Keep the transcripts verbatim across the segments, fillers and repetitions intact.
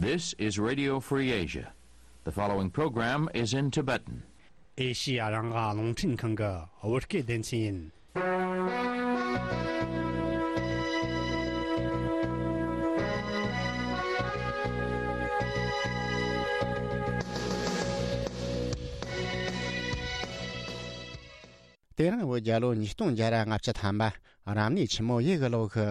This is Radio Free Asia. The following program is in Tibetan. ཨེ་ཤི་ཡ་རང་དབང་རླུང་འཕྲིན་ཁང་གི་བོད་སྐད་སྡེ་ཚན་ཡིན། དེ་རིང་བོད་རྒྱལ་ལོ་ཉིས་སྟོང་བརྒྱ་ར་ལྔ་བཅུ་ཐམ་པ། རབ་གནས་ཆུ་མོ་ཡོས་གི་ལོ་གི་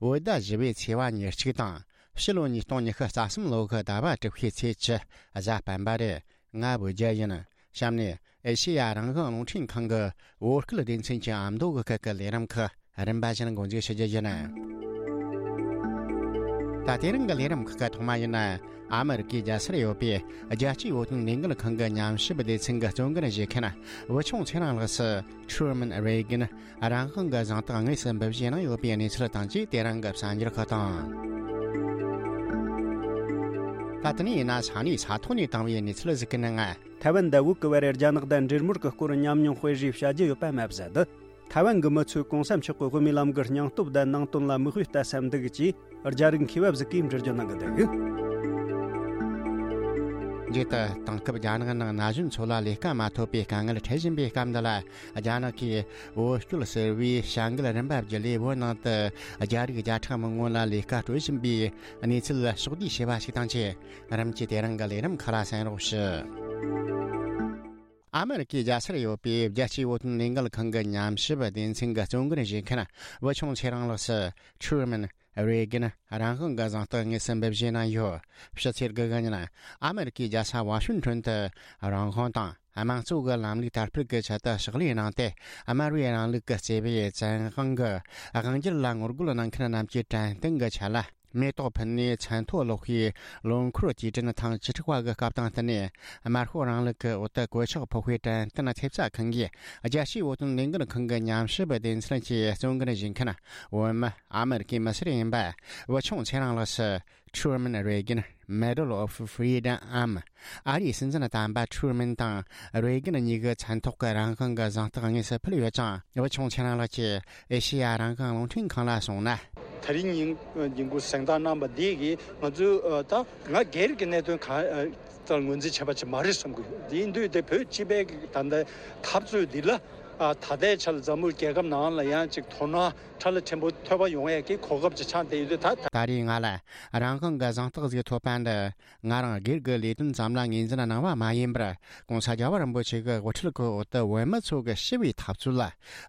བོད་ཟླ་བཞི་པའི་ཚེས་པ་ཉེར་གཅིག་དང་། ཕྱི་ལོ་ཉིས་སྟོང་ཉི་ཤུ་རྩ་གསུམ་ལོ་གི་ཟླ་བ་དྲུག་པའི་ཚེས་བཅུ། གཟའ་སྤེན་པ་རེད། ང་བོད་རྒྱལ་ཡིན། གཤམ་ནས་ཨེ་ཤེ་ཡ་རང་དབང་རླུང་འཕྲིན་ཁང་གི་བོད་སྐད་སྡེ་ཚན་གྱི་ཨ་མདོ་གི་སྐད་ཀྱི་ལས་རིམ་ཁག་རིམ་པ་བཞིན་འགོ་འཛུགས་ཞུ་རྒྱུ་ཡིན། ད་དེ་རིང་གི་ལས་རིམ་ཁག་གི་ཐོག་མ་ཡིན་ན། ཨ་མི་རི་ཀའི་རྒྱལ་སར་ཡོད་པའི་རྒྱལ་སྤྱིའི་བོད་དོན་ལས་འགུལ་ཁང་གི་ཉམས་ཞིབ་སྡེ་ཚན་གྱི་གཙོ་འགན་བཞེས་མཁན་བུ་ཆུང་ཚེ་རིང་ལགས་སུ། Truman Reagan རང་དབང་གི་གཟེངས་རྟགས་དངོས་སུ་འབུལ་བཞེས་གནང་ཡོད་པའི་གནས་ཚུལ་དང་བཅས། དེ་རིང་གི་གསར་འགྱུར་ཁག་དང་། ད་ལྟ་ནས་ཡིན་ན་ས་གནས་ས་ཐོག་ནས་བཏང་བའི་གནས་ཚུལ་ཟིག་གི་ནང་། ཐའེ་ཝན་དང་བོད་ཀྱི་བར་རྒྱ་ནག་དང་འབྲེལ་མོལ་གྱི་སྐོར་ཉམས་མྱོང་སྤེལ་རེས་བྱ་རྒྱུ་ཡོད་པ་མ་ཟད། ཐའེ་ཝན་གྱི་མི་ཚོས་གོང་ས་མཆོག་གི་དབུ་མའི་ལམ་གྱི་སྙིང་སྟོབས་དང་ནང་དོན་ལ་མིག་དཔེ་ལྟ་ས་འདུག་ཅེས་རྒྱ་རིགས་མཁས་པ་ཟིག་གིས་འགྲེལ་བརྗོད་གནང་གི་འདུག་རྗེས་དུ་དེང་སྐབས་རྒྱ་ནག་ནང་ན་གཞོན་ཚོ་ལ་ལས་ཀ་མ་ཐོབ་པའི་དཀའ་ངལ་འཕྲད་བཞིན་པའི་སྐབས་འདི་ལ། རྒྱ་ནག་གིས་བོད་སྐྱོད་ཟེར་བའི་བྱ་འགུལ་རིམ་པ་བརྒྱུད་ལས། བོད་ནང་དུ་རྒྱ་རིགས་བརྒྱ་ཕྲག་མང་པོ་ལ་ལས་ཀ་སྤྲོད་བཞིན་པའི་གནས་ཚུལ་ཕྱོགས་བསྡུས་བྱས་པ་ཞིག་དང་བཅས། རིམ་གྱིས་དེ་རིང་གི་ལས་རིམ་ཁག་ལ་གསན་རོགས་ཞུ། ཨ་མི་རི་ཀའི་རྒྱལ་སར་ཡོད་པའི་རྒྱལ་སྤྱིའི་བོད་དོན་ལས་འགུལ་ཁང་གི་ཉམས་ཞིབ་སྡེ་ཚན་གྱི་གཙོ་འགན་བཞེས་མཁན་བུ་ཆུང་ཚེ་རིང་ལགས་སུ། Truman Reagan རང་དབང་གི་གཟེངས་རྟགས་དངོས་སུ་འབུལ་བཞེས་གནང་ཡོད། ཕྱི་ཚེས་དགུ་གི་ཉིན་ཨ་མི་རི་ཀའི་རྒྱལ་ས་ཝ་ཤིང་ཊོན་དུ་རང་དབང་དང་དམངས་གཙོ་གི་ལམ་ལུགས་དར་སྤེལ་གྱི་ཆེད་དུ་ཕྱག་ལས་གནང་སྟེ། དམར་བའི་རིང་ལུགས་ཀྱི་བརྩེ་བའི་བཙན་དབང་གི་དབང་སྒྱུར་ལ་ངོ་རྒོལ་གནང་མཁན་རྣམས་ཀྱི་དྲན་རྟེན་གྱི་ཆེད་ལ། མེ་ཏོག་ཕུལ་ནས་མཚན་ཐོ་ཀློག་པའི་ལོ་འཁོར་དུས་དྲན་ཐེངས་བཅུ་དྲུག་པ་གི་སྐབས་དང་བསྟུན་ནས། དམར་ཤོག་རིང་ལུགས་ཀྱི་འོག་ཏུ་གོད་ཆག་ཕོག་པའི་དྲན་རྟེན་ཐེབས་རྩ་ཁང་གིས། རྒྱལ་སྤྱིའི་བོད་དོན་ལས་འགུལ་ཁང་གི་ཉམས་ཞིབ་སྡེ་ཚན་གྱི་གཙོ་འགན་བཞེས་མཁན་བོད་མི་ཨ་མི་རི་ཀའི་མི་སེར་ཡིན་པ་བུ་ཆུང་ཚེ་རིང་ལགས་སུ། Truman Reagan Medal of Freedom འམ། ཨ་རིའི་སྲིད་འཛིན་དམ་པ་ཁྲུ་མིན་དང་རེ་གན་གཉིས་ཀྱི་མཚན་ཐོག་གི་རང་དབང་གི་གཟེངས་རྟགས་དངོས་སུ་ཕུལ་ཡོད་ཅིང་། བུ་ཆུང་ཚེ་རིང་ལགས་ཀྱིས་ཨེ་ཤེ་ཡ་རང་དབང་རླུང་འཕྲིན་ཁང་ལ་གསུངས་ན། དེ་རིང་ཉིན་ཉིན་གུང་གཟེངས་རྟགས་གནང་བ་འདི་གིས་ང་ཚོས་ད་ང་སྒེར་གྱི་གནད་དོན་གང་ལྟར་ངོས་འཛིན་བྱས་པ་ཅིག་མ་རེད་བསམ་གྱི་ཡོད། དེ་ཡིན་དུས་དེ་བོད་སྤྱི་པའི་ད་ལྟའི་འཐབ་རྩོད་འདི་ལ་ད་ལྟའི་ཆར་འཛམ་བུ་རྒྱལ་ཁབ་ནང་ལ་ཡང་ཅིག་དོ་སྣང་ཁྲ་ལ་ཆེན་པོ་ཐོབ་པ་ཡོང་ཡས་ཀྱི་གོ་སྐབས་ཅིག་ཆགས་བསྡད་ཡོད་དུས། ད་ད་རེས་ང་ལ་རང་དབང་གི་གཟེངས་རྟགས་ཟིག་ཐོབ་པ་འདི། ང་རང་སྒེར་གྱི་ལས་དོན་ཙམ་ལ་ངོས་འཛིན་གནང་བ་མ་ཡིན་པར། ྋགོང་ས་རྒྱལ་བ་རིན་པོ་ཆེ་གི་དབུ་ཁྲིད་ཀྱི་འོག་ཏུ་བོད་མི་ཚོ་གི་ཞི་བའི་འཐབ་རྩོད་ལ་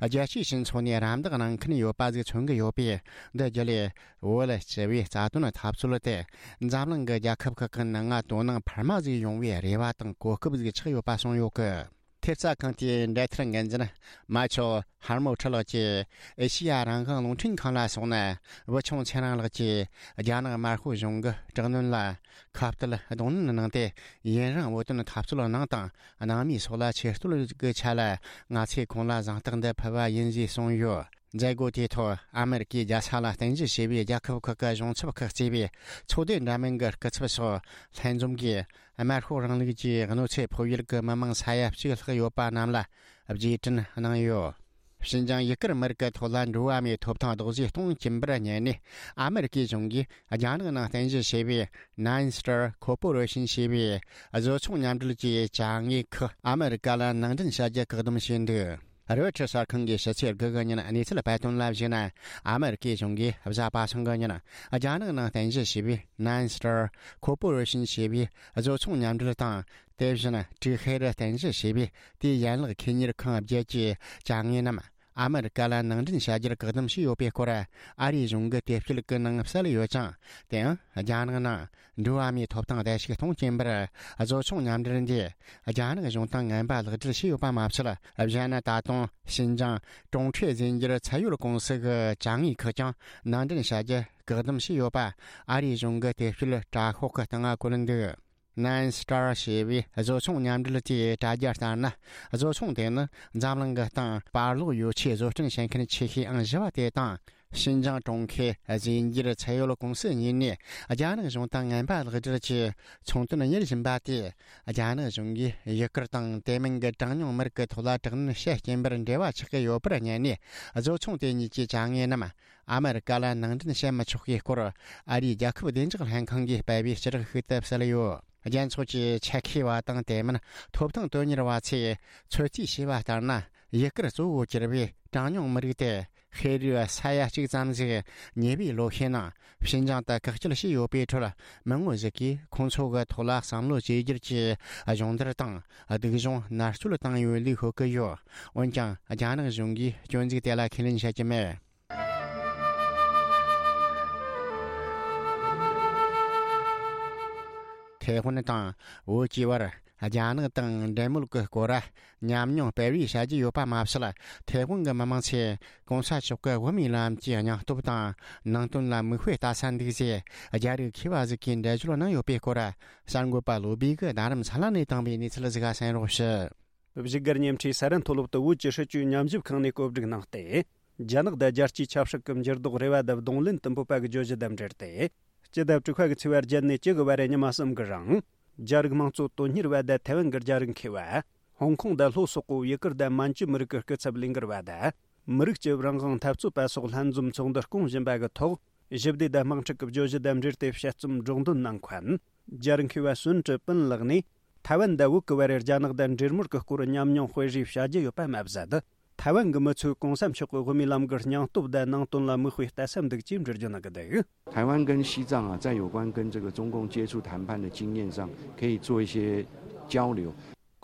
རྒྱལ་སྤྱིའི་སྤྱི་ཚོགས་ནས་རམ་འདེགས་གནང་མཁན་ཡོད་པ་ཟིག་མཚོན་གྱི་ཡོད་པས། འདི་བརྒྱུད་ལས་བོད་ལ་ཞི་བའི་རྩ་དོན་འཐབ་རྩོད་དེ་འཛམ་གླིང་གི་རྒྱལ་ཁབ་ཁག་གི་ནང་ང་དོ་སྣང་འཕར་མ་ཟིག་ཡོང་བའི་རེ་བ་དང་གོ་སྐབས་ཟིག་ཆགས་ཡོད་པ་གསུངས་ཡོད་གི། ཐེབས་རྩ་ཁང་དེའི་འབྲེལ་མཐུད་འགན་འཛིན་མ་ཆོ་ཧར་མོ་ཁྲི་ལགས་ཀྱིས་ཨེ་ཤེ་ཡ་རང་དབང་རླུང་འཕྲིན་ཁང་ལ་གསུངས་ན། བུ་ཆུང་ཚེ་རིང་ལགས་ཀྱིས་རྒྱ་ནག་དམར་ཤོག་གཞུང་གི་དྲག་གནོན་ལ་ཁ་གཏད་གདོང་ལེན་གནང་སྟེ། ཡུན་རིང་བོད་དོན་འཐབ་རྩོད་གནང་དང་གནང་མུས་སོགས་ལ་ཆེ་བསྟོད་ཀྱི་ཆ་ལ། ང་ཚོས་ཁོང་ལ་གཟེངས་རྟགས་འདི་ཕུལ་བ་ཡིན་ཞེས་གསུངས་ཡོད། མཛད་སྒོ་དེའི་ཐོག་ཨ་མེ་རི་ཀའི་རྒྱལ་ས་ལ་རྟེན་གཞི་བྱས་པའི་རྒྱལ་ཁབ་ཁག་གི་གཞུང་ཚབ་ཁག་གཙོས་པའི་ཚོགས་སྡེ་འདྲ་མིན་གྱི་སྐུ་ཚབ་སོགས་ལྷན་འཛོམས་ཀྱིས། དམར་ཤོག་རིང་ལུགས་ཀྱི་གནོད་འཚེ་ཕོག་ཡུལ་གྱི་མི་མང་ས་ཡ་གཅིག་ལྷག་ཡོད་པ་རྣམས་ལ་རྗེས་དྲན་གནང་ཡོད། ཞིན་ཅང་ཡུ་གུར་མི་རིགས་ཀྱི་ཐོག་ལ་འགྲོ་བ་མིའི་ཐོབ་ཐང་རྡོག་རྫིས་གཏོང་གིན་པར་ཉན་ནས། ཨ་མེ་རི་ཀའི་གཞུང་གིས་རྒྱ་ནག་ནང་རྟེན་གཞི་བྱས་པའི་Nine Star Corporation ཞེས་པའི་བཟོ་ཚོང་མཉམ་འབྲེལ་གྱི་ཅ་དངོས་ཁག་ཨ་མེ་རི་ཀ་ལ་ནང་འདྲེན་བྱ་རྒྱུ་བཀག་སྡོམ་བྱས་འདུག་རོའི་ཊར་གསར་ཁང་གིས་ཕྱི་ཚེས་དགུ་གི་ཉིན་གནས་ཚུལ་སྤེལ་དོན་ལ་གཞིགས་ན། ཨ་མེ་རི་ཀའི་གཞུང་གིས་གཟའ་པ་སངས་གི་ཉིན་རྒྱ་ནག་ནང་རྟེན་གཞི་བྱས་པའི་Nine Star Corporation ཞེས་པའི་བཟོ་ཚོང་མཉམ་འབྲེལ་དང་། དེ་བཞིན་ཀྲིག་ཧེར་རྟེན་གཞི་བྱས་པའི་དེའི་ཡན་ལག་ཁེ་གཉེར་ཁང་བརྒྱད་ཀྱི་ཅ་དངོས་རྣམས་ཨ་མེ་རི་ཀ་ལ་ནང་འདྲེན་བྱ་རྒྱུར་བཀག་སྡོམ་བྱས་ཡོད་པའི་སྐོར་ཨ་རིའི་གཞུང་གི་དེབ་སྐྱེལ་གྱི་ནང་གསལ་ཡོད་ཅིང་། དེའང་རྒྱ་ནག་ནང་འགྲོ་བ་མིའི་ཐོབ་ཐང་བརྡལ་བཤིག་གཏོང་གིན་པར་བཟོ་ཚོང་མཉམ་འབྲེལ་འདིས་རྒྱ་ནག་གཞུང་དང་ངན་པ་ལག་སྦྲེལ་བྱས་ཡོད་པ་མ་ཚད། གཞན་ན་ད་དུང་ཞིན་ཅང་ཀྲུང་ཁྲེ་རྫས་འགྱུར་ཚད་ཡོད་ཀུང་སི་གི་ཅ་དངོས་ཁག་ཀྱང་ནང་འདྲེན་བྱ་རྒྱུ་བཀག་སྡོམ་བྱས་ཡོད་པ་ཨ་རིའི་གཞུང་གི་དེབ་སྐྱེལ་དྲ་ཤོག་གི་སྟེང་ང་བཀོད་འདུག Nine Star ཞེས་པའི་བཟོ་ཚོང་མཉམ་འབྲེལ་དེའི་དྲ་རྒྱ་ལྟར་ན། བཟོ་ཚོང་དེ་ནི་འཛམ་གླིང་གི་སྟེང་བར་ལོག་ཡོ་ཆས་བཟོ་སྐྲུན་བྱེད་མཁན་ཆེ་ཤོས་ཨང་བཞི་བ་དེ་དང་། ཞིན་ཅང་གྲོང་ཁྱེར་རྫས་འགྱུར་ཚད་ཡོད་ཀུང་སི་གཉིས་ནས་རྒྱ་ནག་གཞུང་དང་ངན་པ་ལག་སྦྲེལ་གྱིས་ཚོང་དོན་གཉེར་བཞིན་པ་དེ། རྒྱ་ནག་གཞུང་གིས་ཡུ་གུར་དང་དེ་མིན་གྱི་གྲངས་ཉུང་མི་རིགས་ཀྱི་ཐོག་ལ་དྲག་གནོན་བྱེད་རྐྱེན་པར་འབྲེལ་བ་ཆགས་ཀྱི་ཡོད་པར་བསྙད་ནས། བཟོ་ཚོང་དེ་གཉིས་ཀྱི་བྱ་དངོས་རྣམས་ཨ་མེ་རི་ཀ་ལ་ནང་འདྲེན་བྱེད་མི་ཆོག་པའི་སྐོར། ཨ་རིའི་རྒྱལ་ཁབ་བདེ་འཇགས་ལྷན་ཁང་གིས་སྤེལ་བའི་ཕྱིར་ཤུགས་དེ་གསལ་ཡོད། རྒྱལ་ཚོགས་ཀྱི་ཆེད་མཁས་པ་དང་དེ་མིན་ཐོབ་ཐང་དོན་གཉེར་བ་ཚོས་ཚོད་རྩིས་བྱས་པ་ལྟར་ན། ཡུ་གུར་གཙོ་བོ་གྱུར་པའི་གྲངས་ཉུང་མི་རིགས་དེ་ཤེས་རིག་ས་ཡ་གཅིག་ཙམ་ཞིག་ཉེ་བའི་ལོ་ཤས་ནང་ཞིན་ཅང་དུ་བཀག་སྐྱིལ་བྱས་ཡོད་པའི་ཁྲོད། མི་ངོ་ཞིག་གིས་ཁོང་ཚོ་གི་ཐོག་ལ་བསམ་བློ་བཅོས་བསྒྱུར་གྱིས་སྦྱོང་བརྡར་དང་སྡུག་སྦྱོང་མནར་གཅོད་བཏང་ཡོད་ལུགས་ཤོད་ཀྱི་ཡོད། འོན་ཀྱང་རྒྱ་ནག་གཞུང་གིས་སྐྱོན་འཛུགས་དེ་ལ་ཁས་ལེན་བྱེད་ཀྱི་མེད། ཐའེ་ཝན་དང་བོད་ཀྱི་བར་རྒྱ་ནག་དང་འབྲེལ་མོལ་གྱི་སྐོར་ཉམས་མྱོང་སྤེལ་བའི་བྱ་རྒྱུ་ཡོད་པ་མ་ཟད། ཐའེ་ཝན་གྱི་མི་མང་ཚོས་གོང་ས་མཆོག་གི་དབུ་མའི་ལམ་གྱི་སྙིང་སྟོབས་དང་ནང་དོན་ལ་མིག་དཔེ་ལྟ་ས་འདུག་ཅེས་རྒྱ་རིགས་མཁས་པ་ཞིག་གིས་འགྲེལ་བརྗོད་གནང་ཡོད་པའི་སྐོར། གསར་འགོད་པ་བློ་བྷེ་གིས་རྡ་རམ་ས་ལ་ནས་བཏང་བའི་གནས་ཚུལ་ཞིག་གསན་རོགས་ཞུ། བཞུགས་སྒར་ཉེ་འཁྲིས་ས་རན་མཐོ་སློབ་ཏུ་བོད་ཀྱི་སྲིད་བྱུས་ཉམས་ཞིབ་ཁང་ནས་བཀོད་སྒྲིག་གནང་སྟེ། རྒྱ་ནག་དང་རྒྱལ་སྤྱིའི་ཆབ་སྲིད་ཀྱི་འགྱུར་ལྡོག་རེ་བ་དང་གདོང་ལེན་དུ་འབོད་པ་གི་བརྗོད་གཞི་དང་འབྲེལ་ཏེ། སྤྱི་ཟླ་དྲུག་པ་གི་ཚེས་པ་བརྒྱད་ནས་བཅུ་དགུ་བར་རེ་ཉི་མ་གསུམ་གི་རིང་། རྒྱ་རིགས་དམངས་གཙོ་དོན་གཉེར་བ་དང་ཐའེ་ཝན་གྱི་རྒྱ་རིགས་མཁས་པ། ཧོང་ཀོང་དང་ལྷོ་སོག་པོ་ཡུ་གུར་དང་མན་ཇུ་མི་རིགས་ཀྱི་སྐུ་ཚབ་ལས་འགུལ་བ་དང་། མི་རིགས་ཀྱི་རང་དབང་འཐབ་རྩོད་པ་སོགས་ལྷན་འཛོམས་ཚོགས་འདུ་སྐོང་བཞིན་པ་གི་ཐོག་ཞི་བདེ་དང་དམག་འཁྲུག་གི་བརྗོད་གཞི་དང་འབྲེལ་ཏེ་དཔྱད་རྩོམ་སྒྲོག་འདོན་གནང་མཁན། རྒྱ་རིགས་མཁས་པ་སུན་ཀྲི་པིན་ལགས་ནས། ཐའེ་ཝན་དང་བོད་ཀྱི་བར་རྒྱ་ནག་དང་འབྲེལ་མོལ་གྱི་སྐོར་ཉམས་མྱོང་སྤེལ་རེས་བྱ་རྒྱུ་ཡོད་པ་མ་ཟད། ཐའེ་ཝན་གྱི་མི་ཚོས་གོང་ས་མཆོག་གི་དབུ་མའི་ལམ་གྱི་སྙིང་སྟོབས་དང་ནང་དོན་ལ་མིག་དཔེ་ལྟ་ས་འདུག་ཅེས་འགྲེལ་བརྗོད་གནང་གི་འདུག། 台湾跟西藏啊，在有关跟这个中共接触谈判的经验上，可以做一些交流。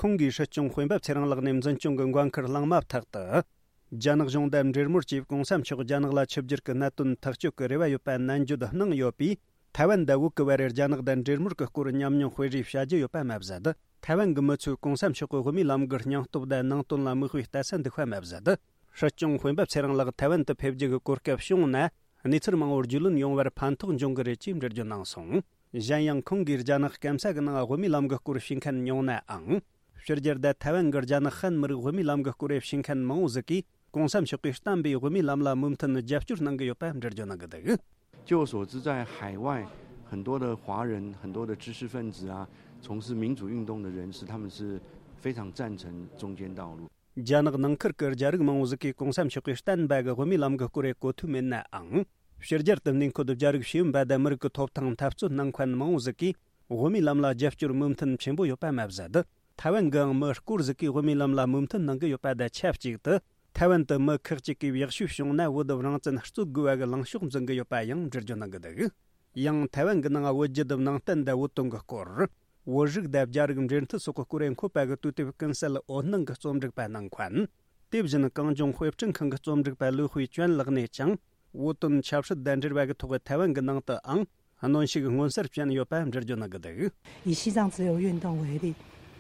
ཁོང་གིས་སྲིད་སྐྱོང་དཔོན་པོ་ཚེ་རིང་ལགས་ནས་འཛིན་སྐྱོང་གི་འགན་འཁུར་བླངས་མ་ཐག་ཏུ། རྒྱ་ནག་གཞུང་དང་འབྲེལ་མོལ་གྱིས་གོང་ས་མཆོག་རྒྱ་ནག་ལ་ཆིབས་བསྒྱུར་གྱི་གནད་དོན་ཐག་གཅོད་ཀྱི་རེ་བ་ཡོད་པ་ནན་བརྗོད་གནང་ཡོད་པས། ཐའེ་ཝན་དང་བོད་ཀྱི་བར་རྒྱ་ནག་དང་འབྲེལ་མོལ་གྱི་སྐོར་ཉམས་མྱོང་སྤེལ་རེས་བྱ་རྒྱུ་ཡོད་པ་མ་ཟད། ཐའེ་ཝན་གྱི་མི་ཚོས་གོང་ས་མཆོག་གི་དབུ་མའི་ལམ་གྱི་སྙིང་སྟོབས་དང་ནང་དོན་ལ་མིག་དཔེ་ལྟ་ས་འདུག་པ་མ་ཟད། སྲིད་སྐྱོང་དཔོན་པོ་ཚེ་རིང་ལགས་ཐའེ་ཝན་དུ་ཕེབས་རྒྱུ་གི་གོ་སྐབས་བྱུང་ན། གནས་ཚུལ་མང་བོར་རྒྱུས་ལོན་ཡོང་བར་ཕན་ཐོགས་འབྱུང་གི་རེད་ཅེས་འགྲེལ་བརྗོད་གནང་སོང་། གཞན་ཡང་ཁོང་གིས་རྒྱ་ནག་སྐམ་ས་གི་ནང་དབུ་མའི་ལམ་གྱི་སྐོར་ཞུས་མཁན་ཉུང་ནའང་། ཕྱི་རྒྱལ་དང་ཐའེ་ཝན་གྱི་རྒྱ་ནག་ཧན་མི་རིགས་དབུ་མའི་ལམ་གྱི་སྐོར་ཞུས་མཁན་མང་བོ་ཟིག་གིས་གོང་ས་མཆོག་གིས་བསྟན་པའི་དབུ་མའི་ལམ་ལ་མོས་མཐུན་རྒྱབ་སྐྱོར་གནང་གི་ཡོད་པ་འགྲེལ་བརྗོད་གནང་གི་འདུག། 据我所知，在海外很多的华人、很多的知识分子啊，从事民主运动的人士，他们是非常赞成中间道路。 རྒྱ་ནག་ནང་ཁུལ་གྱི་རྒྱ་རིགས་མང་བོ་ཟིག་གིས་གོང་ས་མཆོག་གིས་བསྟན་པ་གི་དབུ་མའི་ལམ་གྱི་སྐོར་རེ་གོ་ཐོས་མེད་ནའང་། ཕྱི་རྒྱལ་དུ་གནས་འཁོད་རྒྱ་རིགས་ཤེས་ཡོན་པ་དང་མི་རིགས་ཀྱི་ཐོབ་ཐང་འཐབ་རྩོད་གནང་མཁན་མང་བོ་ཟིག་གིས་དབུ་མའི་ལམ་ལ་རྒྱབ་སྐྱོར་མོས་མཐུན་ཆེན་པོ་ཡོད་པ་མ་ཟད། ཐའེ་ཝན་གྱི་མི་སྐོར་ཟིག་གིས་དབུ་མའི་ལམ་ལ་མོས་མཐུན་གནང་གི་ཡོད་པ་དང་ཆབས་ཅིག་ཏུ། ཐའེ་ཝན་དུ་མི་ཁག་ཅིག་གིས་ཡག་ཤོས་བྱུང་ན་བོད་རང་བཙན་རྩོད་དགོས་པ་གི་ལངས་ཕྱོགས་འཛིན་གི་ཡོད་པ་ཡང་འགྲེལ་བརྗོད་གནང་གི་འདུག། ཡང་ཐའེ་ཝན་གྱི་ནང་བོད་བརྒྱུད་ནང་བསྟན་དང་བོད་དོན་གྱི་སྐོར། བོད་རིགས་དང་རྒྱ་རིགས་འབྲེལ་མཐུད་སོགས་ཀྱི་སྐོར་འཁོད་པ་གི་དུས་དེབ་ཀུན་གསལ་འོད་སྣང་གི་རྩོམ་སྒྲིག་པ་གནང་མཁན། དེ་བཞིན་གངས་ལྗོངས་དཔེ་སྐྲུན་ཁང་གི་རྩོམ་སྒྲིག་པ་ལུའུ་ཧུའེ་ཅོན་ལགས་ནས་ཀྱང་། བོད་དོན་ཆབ་སྲིད་དང་འབྲེལ་བ་གི་ཐོག་ཐའེ་ཝན་གྱི་ནང་དུའང་གནོན་ཤུགས་མངོན་གསལ་ཅན་ཡོད་པ་འགྲེལ་བརྗོད་གནང་གི་འདུག། 以西藏自由运动为例，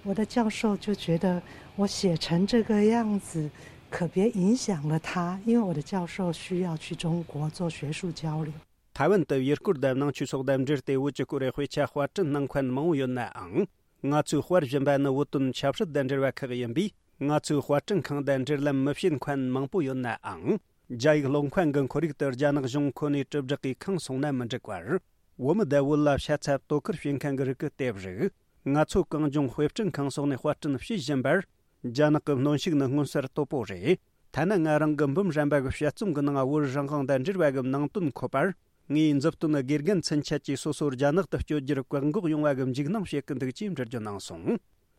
我的教授就觉得我写成这个样子，可别影响了他，因为我的教授需要去中国做学术交流。 ཐའེ་ཝན་དུ་ཡུལ་སྐོར་དང་ནང་ཆོས་སོགས་དང་འབྲེལ་ཏེ་བོད་ཀྱི་སྐོར་དཔེ་ཆ་དཔར་སྐྲུན་གནང་མཁན་མང་བོ་ཡོད་ནའང་། ང་ཚོས་དཔར་བཞིན་པ་ནི་བོད་དོན་ཆབ་སྲིད་དང་འབྲེལ་བ་ཁག་ཡིན་པས། ང་ཚོའི་དཔར་སྐྲུན་ཁང་དང་འབྲེལ་ལམ་མི་བྱེད་མཁན་མང་པོ་ཡོད་ནའང་། རྒྱ་ཡིག་ཀློག་མཁན་གྱི་ཁོར་ཡུག་ཏུ་རྒྱ་ནག་གཞུང་ཁོ་ནའི་དྲིལ་བསྒྲགས་ཀྱིས་ཁེངས་སོང་ན་མི་འགྲིག་པར། བོད་མི་དང་བོད་ལ་ཤ་ཚ་དོ་ཁུར་བྱེད་མཁན་གྱི་རིགས་ཀྱི་དེབ་རིགས། ང་ཚོ་གངས་ལྗོངས་དཔེ་སྐྲུན་ཁང་སོགས་ནས་དཔར་སྐྲུན་བྱེད་བཞིན་པར། རྒྱ་ནག་གི་གནོན་ཤུགས་ནི་མངོན་གསལ་དོད་པོ་རེད། ཐ་ན་ང་རང་གི་འབུམ་རམས་པ་གི་དཔྱད་རྩོམ་གྱི་ནང་བོད་རང་དབང་དང་འབྲེལ་བ་གི་ནང་དོན་འཁོད་པར། ངས་མཛུབ་སྟོན་དགེ་རྒན་ཚུན་ཆད་ཀྱིས་སོ་སོ་རྒྱ་ནག་ཏུ་བསྐྱོད་རྒྱུར་བཀག་འགོག་ཡོང་བ་གི་འཇིགས་སྣང་བྱེད་ཀྱི་འདུག་ཅེས་འགྲེལ་བརྗོད་གནང་སོང་།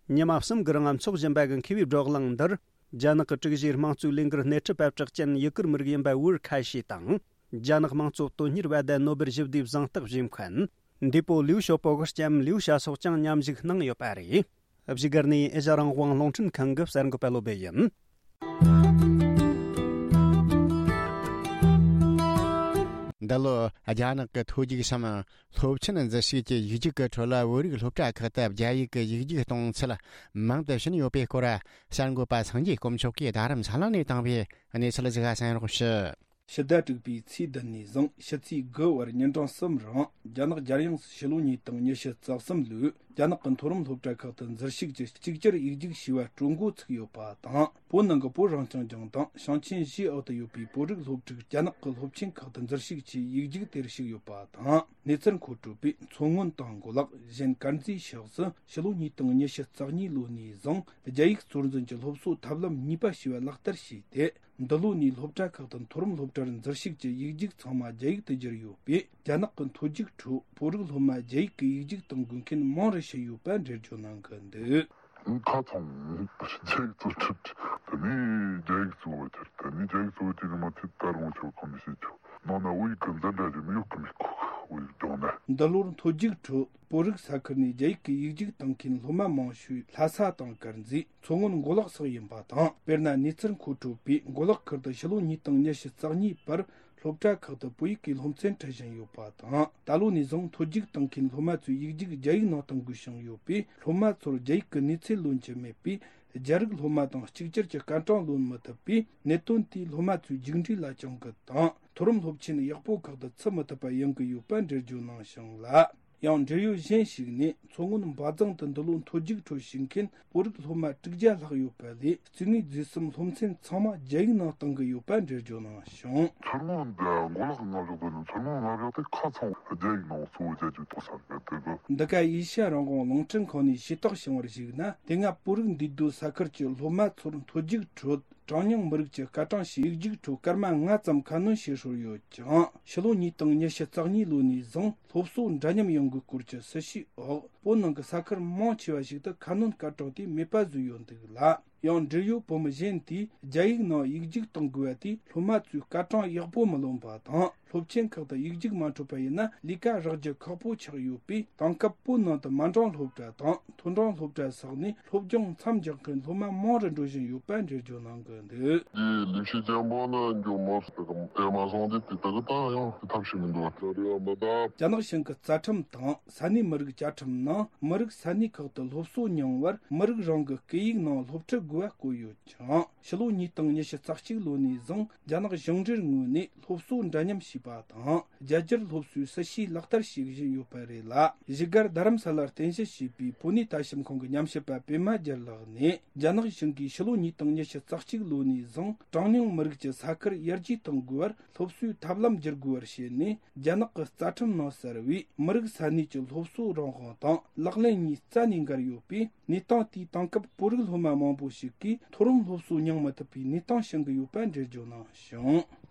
ཉི་མ་གསུམ་གྱི་རིང་འཚོགས་བཞིན་པ་གི་མཁས་པའི་བགྲོ་གླེང་འདིར། རྒྱ་ནག་གི་དྲུག་བཞིའི་དམངས་གཙོའི་ལས་འགུལ་སྣེ་ཁྲིད་པ་གྲགས་ཅན་ཡུ་གུར་མི་རིགས་ཡིན་པ་ཝུར་ཁ་ཤི་དང་། རྒྱ་ནག་དམངས་གཙོ་དོན་གཉེར་བ་དང་ནོ་སྦེལ་ཞི་བདེའི་གཟེངས་རྟགས་བཞེས་མཁན། འདས་པོ་ལིའུ་ཞའོ་པོ་གི་ལྕམ་ལིའུ་ཞའོ་སོགས་ཀྱང་མཉམ་ཞུགས་གནང་ཡོད་པ་རེད། བཞུགས་སྒར་ནས་ཨེ་ཤ་རང་དབང་རླུང་འཕྲིན་ཁང་གི་གསར་འགོད་པ་བློ་བྷེ་ཡིན། འདི་ལོ་རྒྱ་ནག་གི་མཐོ་རྒྱུགས་སམ་སློབ་ཆེན་འཛུལ་ཞུགས་ཀྱི་ཡིག་རྒྱུགས་ཀྱི་ཁྲོད་ལ་བོད་རིགས་སློབ་གྲྭ་ཁག་ཏུ་རྒྱ་ཡིག་གི་ཡིག་རྒྱུགས་གཏོང་ཚུལ་མང་དུ་ཕྱིན་ཡོད་པའི་སྐོར། གསར་འགོད་པ་སངས་རྒྱས་དཀོན་མཆོག་གིས་རྡ་རམ་ས་ལ་ནས་བཏང་བའི་གནས་ཚུལ་ཞིག་གསན་རོགས་ཞུ། ཕྱི་ཟླ་དྲུག་པའི་ཚེས་བདུན་ནས་བཟུང་ཕྱི་ཚེས་དགུ་བར་ཉིན་གྲངས་གསུམ་རིང་རྒྱ་ནག་རྒྱལ་ཡོངས་སུ་ཕྱི་ལོ་ཉིས་སྟོང་ཉི་ཤུ་རྩ་གསུམ་ལོའི་ རྒྱ་ནག་གི་མཐོ་རིམ་སློབ་གྲྭ་ཁག་ཏུ་འཛུལ་ཞུགས་ཀྱིས་གཅིག་གྱུར་ཡིག་རྒྱུགས་བྱས་པ་སྤྲོད་འགོ་ཚུགས་ཡོད་པ་དང་། བོད་ནང་གི་བོད་རང་སྐྱོང་ལྗོངས་དང་ཞིང་ཆེན་བཞིའི་འོག་ཏུ་ཡོད་པའི་བོད་རིགས་སློབ་ཕྲུག་རྒྱ་ནག་གི་སློབ་ཆེན་ཁག་ཏུ་འཛུལ་ཞུགས་ཀྱིས་ཡིག་རྒྱུགས་དེར་ཞུགས་ཡོད་པ་དང་། གནས་ཚུལ་མཁོ་སྤྲོད་པས་མཚོ་སྔོན་དང་མགོ་ལོག་གཞན་དཀར་མཛེས་ཕྱོགས་སུ་ཕྱི་ལོ་ཉིས་སྟོང་ཉི་ཤུ་རྩ་གཉིས་ལོ་ནས་བཟུང་རྒྱ་ཡིག་གཙོར་འཛིན་གྱི་སློབ་གསོ་ཐབས་ལམ་གཉིས་པ་ཞེས་པ་ལག་བསྟར་བྱས་ཏེ། འདི་ལོ་ནས་སློབ་གྲྭ་ཁག་ཏུ་མཐོ་རིམ་སློབ་གྲྭར་འཛུལ་ཞུགས་ཀྱིས་ཡིག་རྒྱུགས་ཚང་མ་རྒྱ་ཡིག་ཏུ་བསྒྱུར་ཡོད་པས། རྒྱ་ནག་གི་མཐོ་རྒྱུགས་ཁྲོད་བོད་རིགས་སློབ་མ་རྒྱ་ཡིག་གི་ཡིག་རྒྱུགས་གཏོང་དགོས་མཁན་མང་རུ་ཕྱིན་ཡོད་པ་འགྲེལ་བརྗོད་གནང་གི་འདུག། ཁ་ཚང་རྒྱ་ཡིག་གཙོ་ཁྲིད་དེ་ནས་རྒྱ་ཡིག་གཙོ་བོ་དེར་དེ་ནས་རྒྱ་ཡིག་གཙོ་བོ་དེ་ནི་མ་ཚད་ད་རུང་ཆོག་གང་མི་ཤེས་ཆོག་ནང་ན་བོད་ཡིག་གི་འཛིན་གྲྭ་ཞིག་མི་ཡོད་གི་མི་ཁོ་བོད་ཡིག་སྦྱོང་ན། འདི་ལོར་མཐོ་རྒྱུགས་ཁྲོད་བོད་རིགས་ས་ཁུལ་ནས་རྒྱ་ཡིག་གི་ཡིག་རྒྱུགས་གཏོང་མཁན་སློབ་མ་མང་ཤོས་ལྷ་ས་དང་དཀར་མཛེས། མཚོ་སྔོན་མགོ་ལོག་སོགས་ཡིན་པ་དང་། དཔེར་ན་གནས་ཚུལ་མཁོ་སྤྲོད་པས་མགོ་ལོག་ཁུལ་དུ་ཕྱི་ལོ་ཉིས་སྟོང་ཉི་ཤུ་རྩ་གཉིས་བར་སློབ་གྲྭ་ཁག་ཏུ་བོད་ཡིག་གི་སློབ་ཚན་ཁྲིད་བཞིན་ཡོད་པ་དང་། ད་ལོ་ནས་བཟུང་མཐོ་རྒྱུགས་གཏོང་མཁན་སློབ་མ་ཚོས་ཡིག་རྒྱུགས་རྒྱ་ཡིག་ནང་གཏོང་དགོས་བྱུང་ཡོད་པས། སློབ་མ་ཚོར་རྒྱ་ཡིག་གི་གནས་ཚད་ལོན་གྱི་མེད་པས། རྒྱ་རིགས་སློབ་མ་དང་གཅིག་གྱུར་གྱི་སྐར་གྲངས་ལོན་མི་ཐུབ་པས། གནད་དོན་དེས་སློབ་མ་ཚོའི་རྒྱུགས་འབྲས་ལ་གྱོང་གུན་དང་། མཐོ་རིམ་སློབ་ཆེན་ཡག་པོ་ཁག་ཏུ་ཚུད་མི་ཐུབ་པ་ཡོང་གི་ཡོད་པ་འགྲེལ་བརྗོད་གནང་བྱུང་ལ། ཡང་འབྲེལ་ཡོད་གཞན་ཞིག་ནས། མཚོ་སྔོན་འབའ་རྫོང་དུ་འདི་ལོ་མཐོ་རྒྱུགས་ཁྲོད་ཞུགས་མཁན་བོད་རིགས་སློབ་མ་དྲུག་བརྒྱ་ལྷག་ཡོད་པ་ལས། སྐྱེ་དངོས་རྫས་གསུམ་སློབ་ཚན་ཚང་མ་རྒྱ་ཡིག་ནང་གཏོང་གི་ཡོད་པ་འགྲེལ་བརྗོད་གནང་བྱུང་། མཚོ་སྔོན་འདི་མགོ་ལོག་གི་མངའ་འཇོག་དེ་ནི་མཚོ་སྔོན་མངའ་འཇོག་དེ་ཁ་ཚང་རྒྱ་ཡིག་ནང་གཙོ་བོ་རྒྱ་རྒྱུགས་གཏོང་ས་རེད་དེ་གི། འདི་ག་ཨེ་ཤ་ཡ་རང་དབང་རླུང་འཕྲིན་ཁང་ནས་ཤེས་རྟོགས་བྱུང་བར་གཞིགས་ན། དེ་སྔ་བོད་རིགས་འདུས་སྡོད་ས་ཁུལ་གྱི་སློབ་མ་ཚོར་མཐོ་རྒྱུགས་ཁྲོད། གྲངས་ཉུང་མི་རིགས་ཀྱི་སྐར་གྲངས་ཤིག་ཡིག་རྒྱུགས་ཁྲོད་སྐར་མ་ལྔ་ཙམ་ཁ་སྣོན་བྱེད་སྲོལ་ཡོད་ཀྱང་། ཕྱི་ལོ་ཉིས་སྟོང་ཉི་ཤུ་རྩ་གཉིས་ལོ་ནས་བཟུང་སློབ་གསོ་འདྲ་མཉམ་ཡོང་དགོས་སྐོར་གྱི་སྲི་ཞུའི་འོག་བོད་ནང་གི་ས་ཁུལ་མང་ཆེ་བ་ཞིག་ཏུ་ཁ་སྣོན་སྐར་གྲངས་དེ་མེད་པ་བཟོས་ཡོད་འདུག་ལ། ཡང་འབྲེལ་ཡོད་བོད་མི་གཞན་དེས་རྒྱ་ཡིག་ནང་ཡིག་རྒྱུགས་གཏོང་དགོས་པ་དེས་སློབ་མ་ཚོས་སྐར་གྲངས་ཡག་པོ་མི་ལོན་པ་དང་། སློབ་ཆེན་ཁག་ཏུ་ཡིག་རྒྱུགས་མ་འཕྲོད་པ་ཡིན་ན་ལས་ཀ་རག་རྒྱུ་ཁག་པོ་ཆགས་ཡོད་པས། དེང་སྐབས་བོད་ནང་དུ་མ་འདྲེས་སློབ་གྲྭ་དང་མཐོ་འབྲིང་སློབ་གྲྭ་སོགས་ནས་སློབ་སྦྱོང་མཚམས་འཇོག་མཁན་སློབ་མ་མང་རུ་འགྲོ་བཞིན་ཡོད་པ་འགྲེལ་བརྗོད་གནང་གི་འདུག། འདིའི་ལས་བྱེད་ཅན་པོ་ནི་འགྱོ་མོ་ཟེར་གི་ཨེ་མ་སོང་དེ་དེ་དག་ད་ཡང་དེ་ཐབས་ཤེས་མི་འདུག་ལ་རེ་བ་མི་གདབ། རྒྱ་ནག་གཞུང་གི་རྩ་ཁྲིམས་དང་ས་གནས་མི་རིགས་བཅའ་ཁྲིམས་ནང་མི་རིགས་ས་གནས་ཁག་ཏུ་སློབ་གསོ་མྱོང་བར་མི་རིགས་རང་གི་སྐད་ཡིག་ནང་སློབ་ཁྲིད་དགོས་པ་བཀོད་ཡོད་ཅིང་། ཕྱི་ལོ་ཉིས་སྟོང་ཉི་ཤུ་རྩ་གཅིག་ལོ་ནས་བཟུང་རྒྱ་ནག་གཞུང་འབྲེལ་ངོས་ནས་སློབ་གསོ་འདྲ་མཉམ་བྱས་པ་དང་། རྒྱ་སྒྱུར་སློབ་གསོའི་སྲི་ཞུའི་ལག་བསྟར་བྱེད་བཞིན་ཡོད་པ་རེད་ལ། བཞུགས་སྒར་རྡ་རམ་ས་ལར་རྟེན་གཞི་བྱས་པའི་བོད་གནས་ལྟ་ཞིབ་ཁང་གི་ཉམས་ཞིབ་པ་པད་མ་རྒྱལ་ལགས་ནས། རྒྱ་ནག་གཞུང་གིས་ཕྱི་ལོ་ཉིས་སྟོང་ཉི་ཤུ་རྩ་གཅིག་ལོ་ནས་བཟུང་གྲངས་ཉུང་མི་རིགས་ཀྱི་ས་ཁུལ་ཡར་རྒྱས་གཏོང་དགོས་པར་སློབ་གསོའི་ཐབས་ལམ་བསྒྱུར་དགོས་པར་བྱས་ནས། རྒྱ་ནག་གི་རྩ་ཁྲིམས་ནང་གསལ་བའི་མི་རིགས་ས་གནས་ཀྱི་སློབ་གསོ་རང་དབང་དང་ལག་ལེན་གཉིས་རྩ་ནས་འགལ་ཡོད་པས། གནས་སྟངས་དེས་དེང་སྐབས་བོད་རིགས་སློབ་མ་མང་པོ་ཞིག་གིས་མཐོ་རིམ་སློབ་གསོ་མྱོང་མི་ཐུབ་པའི་གནས་སྟངས་བྱུང་གི་ཡོད་པ་འགྲེལ་བརྗོད་གནང་བྱུང་།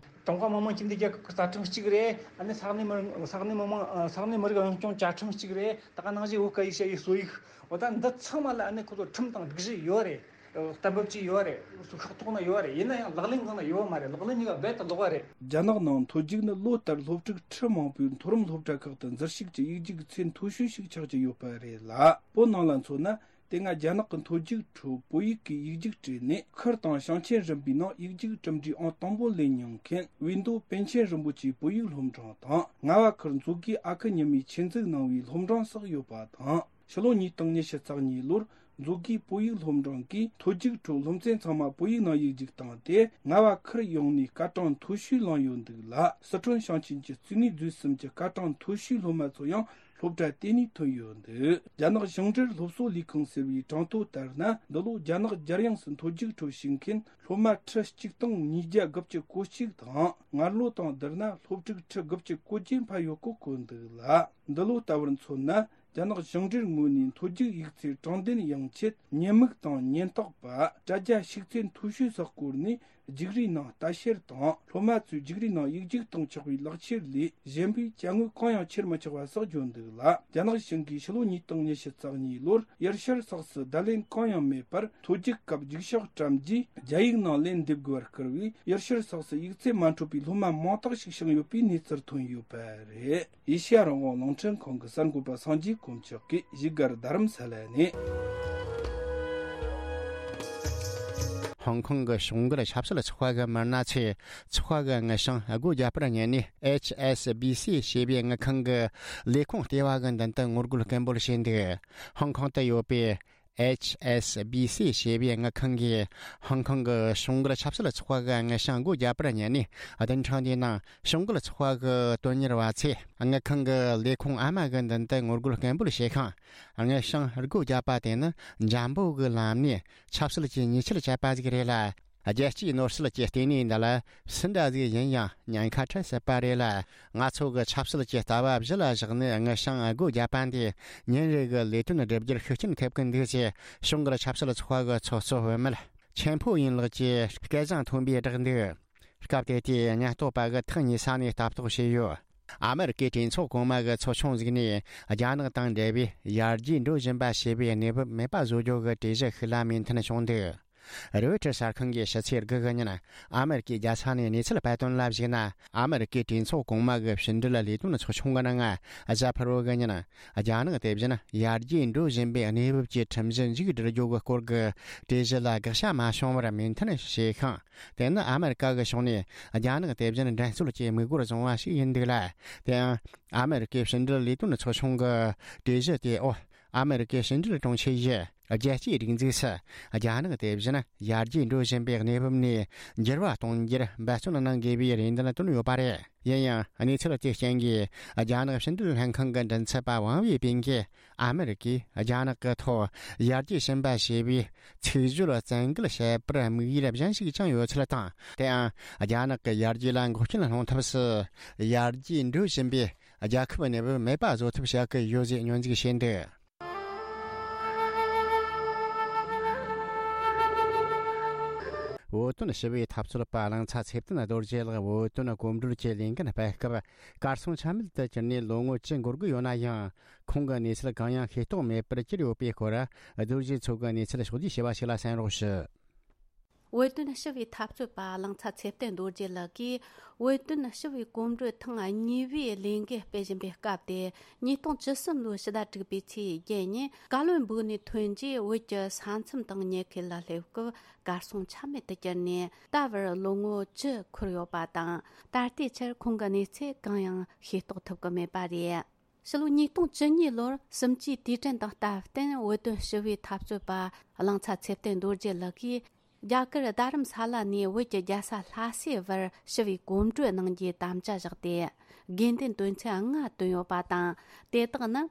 ཀྲུང་ཧྭ་མི་དམངས་སྤྱི་མཐུན་རྒྱལ་ཁབ་ཀྱི་རྩ་ཁྲིམས་གཅིག་རེད། ཨ་ནི་ས་གནས་མི་ས་གནས་མི་དམངས་ས་གནས་མི་རིགས་རང་སྐྱོང་བཅའ་ཁྲིམས་གཅིག་རེད། ད་ག་ནང་བཞིན་བོད་སྐད་ཡིག་བཤད་ཡིག་གསོ་ཡིག་འོ་ད་འདི་ཚང་མ་ལ་ཨ་ནི་ཁོ་ཚོ་ཁྲིམས་དང་སྒྲིག་གཞི་ཡོད་རེད། གཏན་འབེབས་ཀྱི་ཡོད་རེད། ཤོག་ཐོག་ན་ཡོད་རེད། ཡིན་ན་ཡང་ལག་ལེན་གང་ན་ཡོད་མ་རེད། ལག་ལེན་གཉིས་ཀ་རྦད་དེ་ལོག་པ་རེད། རྒྱ་ནག་ནང་མཐོ་རྒྱུགས་ནི་ལོ་ལྟར་སློབ་ཕྲུག་ཁྲི་མང་པོས་མཐོ་རིམ་སློབ་གྲྭ་ཁག་ཏུ་འཛུལ་ཞུགས་ཀྱི་ཡིག་རྒྱུགས་ཚད་མཐོ་ཤོས་ཤིག་ཆགས་ཀྱི་ཡོད་པ་རེད་ལ། བོད་ནང་ལ་མཚོན་ན། དེ་སྔ་རྒྱ་ནག་གི་མཐོ་རྒྱུགས་ཁྲོད་བོད་ཡིག་གི་ཡིག་རྒྱུགས་སྤྲད་ནས་ཁུལ་དང་ཞིང་ཆེན་རིམ་པའི་ནང་ཡིག་རྒྱུགས་གྲུབ་འབྲས་ཨང་དང་པོ་ལེན་མྱོང་མཁན་བིས་མདོ་པཎ་ཆེན་རིན་པོ་ཆེའི་བོད་ཡིག་སློབ་འབྲིང་དང་། རྔ་བ་ཁུལ་མཛོད་དགེ་ཨ་ཁུ་ཉི་མས་ཆེད་འཛུགས་གནང་བའི་སློབ་འབྲིང་སོགས་ཡོད་པ་དང་། ཕྱི་ལོ་ཉིས་སྟོང་ཉི་ཤུ་རྩ་གཉིས་ལོར་མཛོད་དགེའི་བོད་ཡིག་སློབ་འབྲིང་གིས་མཐོ་རྒྱུགས་ཁྲོད་སློབ་ཚན་ཚང་མ་བོད་ཡིག་ནང་ཡིག་རྒྱུགས་བཏང་སྟེ། རྔ་བ་ཁུལ་ཡོངས་ནས་སྐར་གྲངས་མཐོ་ཤོས་བླངས་ཡོད་འདུག་ལ། སི་ཁྲོན་ཞིང་ཆེན་གྱི་སྐྱེ་དངོས་རྫས་གསུམ་གྱི་སྐར་གྲངས་མཐོ་ཤོས་སློབ་མ་ཚོ་ཡང་སློབ་གྲྭ་དེ་ནས་ཐོན་ཡོད་འདུག། རྒྱ་ནག་ཞིང་འབྲེལ་སློབ་གསོ་ལས་ཁུངས་ཟེར་བའི་གྲངས་ཐོ་ལྟར་ན། འདི་ལོ་རྒྱ་ནག་རྒྱལ་ཡོངས་སུ་མཐོ་རྒྱུགས་ཁྲོད་ཞུགས་མཁན་སློབ་མ་ཁྲི་གཅིག་སྟོང་ཉིས་བརྒྱ་དགུ་བཅུ་གོ་གཅིག་དང་། སྔར་ལོ་དང་བསྡུར་ན་སློབ་ཕྲུག་ཁྲི་དགུ་བཅུ་གོ་བརྒྱད་འཕར་ཡོད་སྐོར་བཀོད་འདུག་ལ། འདི་ལོ་ལྟ་བུར་མཚོན་ན། རྒྱ་ནག་ཞིང་འབྲེལ་ངོས་ནས་མཐོ་རྒྱུགས་ཡིག་ཚད་དྲང་བདེན་ཡོང་ཆེད་ཉེན་མིག་དང་ཉེན་རྟོག་པ། དྲ་རྒྱ་ཤུགས་ཚད་མཐོ་ཤོས་སུ་བསྐོར་ནས་རྒྱུགས་རིས་ནང་ལྟ་བཤེར་དང་། སློབ་མ་ཚོས་རྒྱུགས་རིས་ནང་ཡིག་རྒྱུགས་གཏོང་ཆོག་པའི་ལག་ཁྱེར་ལས་གཞན་པའི་དཔྱ་དངོས་གང་ཡང་ཁྱེར་མི་ཆོག་པ་སོགས་བརྗོད་འདུག་ལ། རྒྱ་ནག་གཞུང་གིས་ཕྱི་ལོ་ཉིས་སྟོང་ཉི་ཤུ་རྩ་གཉིས་ལོར་དབྱིར་ཤར་སོགས་སུ་བརྡ་ལན་གང་ཡང་མེད་པར། མཐོ་རྒྱུགས་སྐབས་རྒྱུགས་ཤོག་བཀྲམ་རྗེས་རྒྱ་ཡིག་ནང་ལན་འདེབས་དགོས་པར་བསྐུལ་བས། དབྱིར་ཤར་སོགས་སུ་ཡིག་ཚད་མ་འཕྲོད་པའི་སློབ་མ་མང་དག་ཞིག་བྱུང་ཡོད་པའི་གནས་ཚུལ་ཐོན་ཡོད་པ་རེད། ཨེ་ཤེ་ཡ་རང་དབང་རླུང་འཕྲིན་ཁང་གི་གསར་འགོད་པ་སངས་རྒྱས་དཀོན་མཆོག་གིས་བཞུགས་སྒར་རྡ་རམ་ས་ལ་ནས། ཧོང་ཀོང་གི་གཞུང་སྒེར་ཆབ་སྲིད་ཚོགས་པ་གི་མི་སྣ་ཚོས་ཚོགས་པ་གི་དངུལ་བྱང་སྒོ་བརྒྱབ་པར་ཉན་ནས། ཨེཆ་ཨེས་བི་སི་ཞེས་པའི་དངུལ་ཁང་གི་ལས་ཁུངས་ལྟེ་བ་གི་མདུན་དུ་ངོ་རྒོལ་སྐད་འབོད་བྱས་འདུག། ཧོང་ཀོང་དུ་ཡོད་པའི་ ཨེཆ་ཨེས་བི་སི་ཞེས་པའི་དངུལ་ཁང་གིས་ཧོང་ཀོང་གི་གཞུང་སྒེར་ཆབ་སྲིད་ཚོགས་པ་གི་དངུལ་བྱང་སྒོ་བརྒྱབ་པར་ཉན་ནས། བདུན་ཕྲག་འདིའི་ནང་གཞུང་སྒེར་ཚོགས་པ་གི་དོན་གཉེར་བ་ཚོས་དངུལ་ཁང་གི་ལས་ཁུངས་ཨ་མ་གི་མདུན་དུ་ངོ་རྒོལ་སྐད་འབོད་བྱས་ཤིང་། དངུལ་བྱང་སྒོ་བརྒྱབ་པ་དེ་ནི་འཇམ་པོ་གི་ལམ་ནས་ཆབ་སྲིད་ཀྱི་ཉེས་ཆད་བཅད་པ་ཞིག་རེད་ལ། རྒྱལ་སྤྱིའི་ནོར་སྲིད་ཀྱི་ལྟེ་གནས་འདི་ལ་སུ་འདྲ་ཟིག་ཡིན་ཡང་ཉེན་ཁ་འཕྲད་སྲིད་པ་རེད་ལ། ང་ཚོ་གི་ཆབ་སྲིད་ཀྱི་ལྟ་བ་གཞི་ལ་བཞག་ནས་དངུལ་བྱང་སྒོ་བརྒྱབ་པ་འདིས་ཉིན་རེ་གི་ལས་དོན་སྒྲུབ་རྒྱུར་ཤུགས་རྐྱེན་ཐེབས་ཀྱི་འདུག་ཅེས་གཞུང་སྒེར་ཆབ་སྲིད་ཚོགས་པ་གི་ཚོགས་གཙོ་བུད་མེད་ཆེན་ཕུའུ་ཡིན་ལགས་ཀྱིས་སྐད་གསང་མཐོན་པོས་བསྒྲགས་འདུག་སྐབས་དེ་དུས་ཉེན་རྟོག་པ་གིས་ཐག་ཉེ་ས་ནས་ལྟ་རྟོག་བྱས་ཡོད། ཨ་མེ་རི་ཀའི་གྲོས་ཚོགས་གོང་མ་གི་ཚོགས་ཆུང་ཟིག་ནས་རྒྱ་ནག་དང་འབྲེལ་བའི་ཡར་རྒྱས་འགྲོ་བཞིན་པ་ཞེས་པའི་གནས་བབ་མེད་པ་བཟོ་རྒྱུ་གི་གྲོས་གཞི་ཤིག་ལ་མོས་མཐུན་བྱུང་འདུག་རོའི་ཊར་གསར་ཁང་གིས་ཕྱི་ཚེས་དགུ་གི་ཉིན་ཨ་མེ་རི་ཀའི་རྒྱལ་ས་ནས་གནས་ཚུལ་སྤེལ་དོན་ལ་གཞིགས་ན། ཨ་མེ་རི་ཀའི་གྲོས་ཚོགས་གོང་མ་གི་ཕྱི་འབྲེལ་ལས་དོན་ཚོགས་ཆུང་གི་ནང་། གཟའ་ཕུར་བུ་གི་ཉིན་རྒྱ་ནག་དེ་བཞིན་ཡར་རྒྱས་འགྲོ་བཞིན་པའི་གནས་བབ་ཀྱི་ཁྲིམས་གཞི་མཇུག་སྒྲིལ་རྒྱུ་གི་སྐོར་གྱི་གྲོས་གཞི་ལ་དགག་བྱ་མ་བྱུང་བར་མོས་མཐུན་བྱས་ཤིང་། དེ་ནི་ཨ་མེ་རི་ཀ་གི་ཕྱོགས་ནས་རྒྱ་ནག་དེ་བཞིན་འགྲན་རྩོད་ཀྱི་དམིགས་ཡུལ་བཟུང་བ་ཞིག་ཡིན་འདུག་ལ། དེ་ཡང་ཨ་མེ་རི་ཀའི་ཕྱི་འབྲེལ་ལས་དོན་ཚོགས་ཆུང་གི་གྲོས་གཞི་དེ། འོ། ཨ་མེ་རི་ཀའི་ཕྱི་འབྲེལ་དྲུང་ཆེ་ཡིས་རྒྱལ་སྤྱིའི་སྒྲིག་འཛུགས་སུ་རྒྱ་ནག་དེ་བཞིན་ཡར་རྒྱས་འགྲོ་བཞིན་པའི་གནས་བབ་ནས་འགྱུར་བ་གཏོང་རྒྱུར་འབད་བརྩོན་གནང་དགོས་པའི་རེ་འདུན་བཏོན་ཡོད་པ་རེད། ཡིན་ཡང་། གནས་ཚུལ་དེའི་རྐྱེན་གྱིས་རྒྱ་ནག་ཕྱི་འབྲེལ་ལྷན་ཁང་གི་མགྲིན་ཚབ་པ་ཝང་ཝེ་པིན་གྱིས། ཨ་མེ་རི་ཀས་རྒྱ་ནག་གི་ཐོག་ཡར་རྒྱས་ཕྱིན་པ་ཞེས་པའི་ཚིག་བརྗོད་བཙན་འགེལ་བྱས་པར་དམིགས་ཡུལ་གཞན་ཞིག་ཀྱང་ཡོད་ཚུལ་དང་། དེའང་རྒྱ་ནག་གི་ཡར་རྒྱས་ལ་འགོག་རྐྱེན་སློང་ཐབས་སུ་ཡར་རྒྱས་འགྲོ་བཞིན་པའི་རྒྱལ་ཁབ་གནས་བབ་མེད་པ་བཟོ་ཐབས་བྱ་གི་ཡོད་ཅེས་སྙོན་འཛུགས་བྱས་འདུག་བོད་དོན་ཞི་བའི་འཐབ་རྩོད་པ་གླིང་ཚ་ཚེ་བརྟན་རྡོ་རྗེ་ལགས་བོད་དོན་གོམ་བགྲོད་ཀྱི་ལས་འགན་སྤེལ་སྐབས་གར་སོང་ཆ་མེད་དུ་གྱུར་ནས་ལོ་ངོ་བཅུ་འགོར་གི་ཡོད་ན་ཡང་། ཁོང་གི་གནས་ཚུལ་གང་ཡང་ཤེས་རྟོགས་མེད་པར་གྱུར་ཡོད་པའི་སྐོར། རྡོ་རྗེ་མཚོ་གི་གནས་ཚུལ་ཕྱོགས་བསྡུས་བྱས་པ་ཞིག་ལ་གསན་རོགས་ཞུ། བོད་དོན་ཞི་བའི་འཐབ་རྩོད་པ་གླིང་ཚ་ཚེ་བརྟན་རྡོ་རྗེ་ལགས་ཀྱིས། བོད་དོན་ཞི་བའི་གོམ་བགྲོད་ཐེངས་གཉིས་པའི་ལས་འགུལ་སྤེལ་བཞིན་པའི་སྐབས་ཏེ། ཉིས་སྟོང་བཅུ་གསུམ་ལོའི་ཕྱི་ཟླ་དྲུག་པའི་ཚེས་བརྒྱད་ཉིན། ཀ་ལོན་སྦུག་ནས་ཐོན་རྗེས། བོད་ཀྱི་ས་མཚམས་དང་ཉེ་ཁུལ་ལ་སླེབས་སྐབས། གར་སོང་ཆ་མེད་དུ་གྱུར་ནས། ད་བར་ལོ་ངོ་བཅུ་འཁོར་ཡོད་པ་དང་། ད་ལྟའི་ཆར་ཁོང་གི་གནས་ཚུལ་གང་ཡང་ཤེས་རྟོགས་ཐུབ་ཀྱི་མེད་པ་རེད། ཕྱི་ལོ་ཉིས་སྟོང་བཅུ་གཉིས་ལོར་གསུམ་བཅུའི་དུས་དྲན་དང་སྟབས་བསྟུན། བོད་དོན་ཞི་བའི་འཐབ་རྩོད་པ་གླིང་ཚ་ཚེ་བརྟན་རྡོ་རྗེ་ལགས་ཀྱིས། རྒྱ་གར་རྡ་རམ་ས་ལ་ནས་བོད་ཀྱི་རྒྱལ་ས་ལྷ་སའི་བར་ཞི་བའི་གོམ་བགྲོད་གནང་རྒྱུའི་དམ་བཅའ་བཞག་སྟེ། དགོས་འདུན་དོན་ཚན་ལྔ་བཏོན་ཡོད་པ་དང་། དེ་དག་ནི།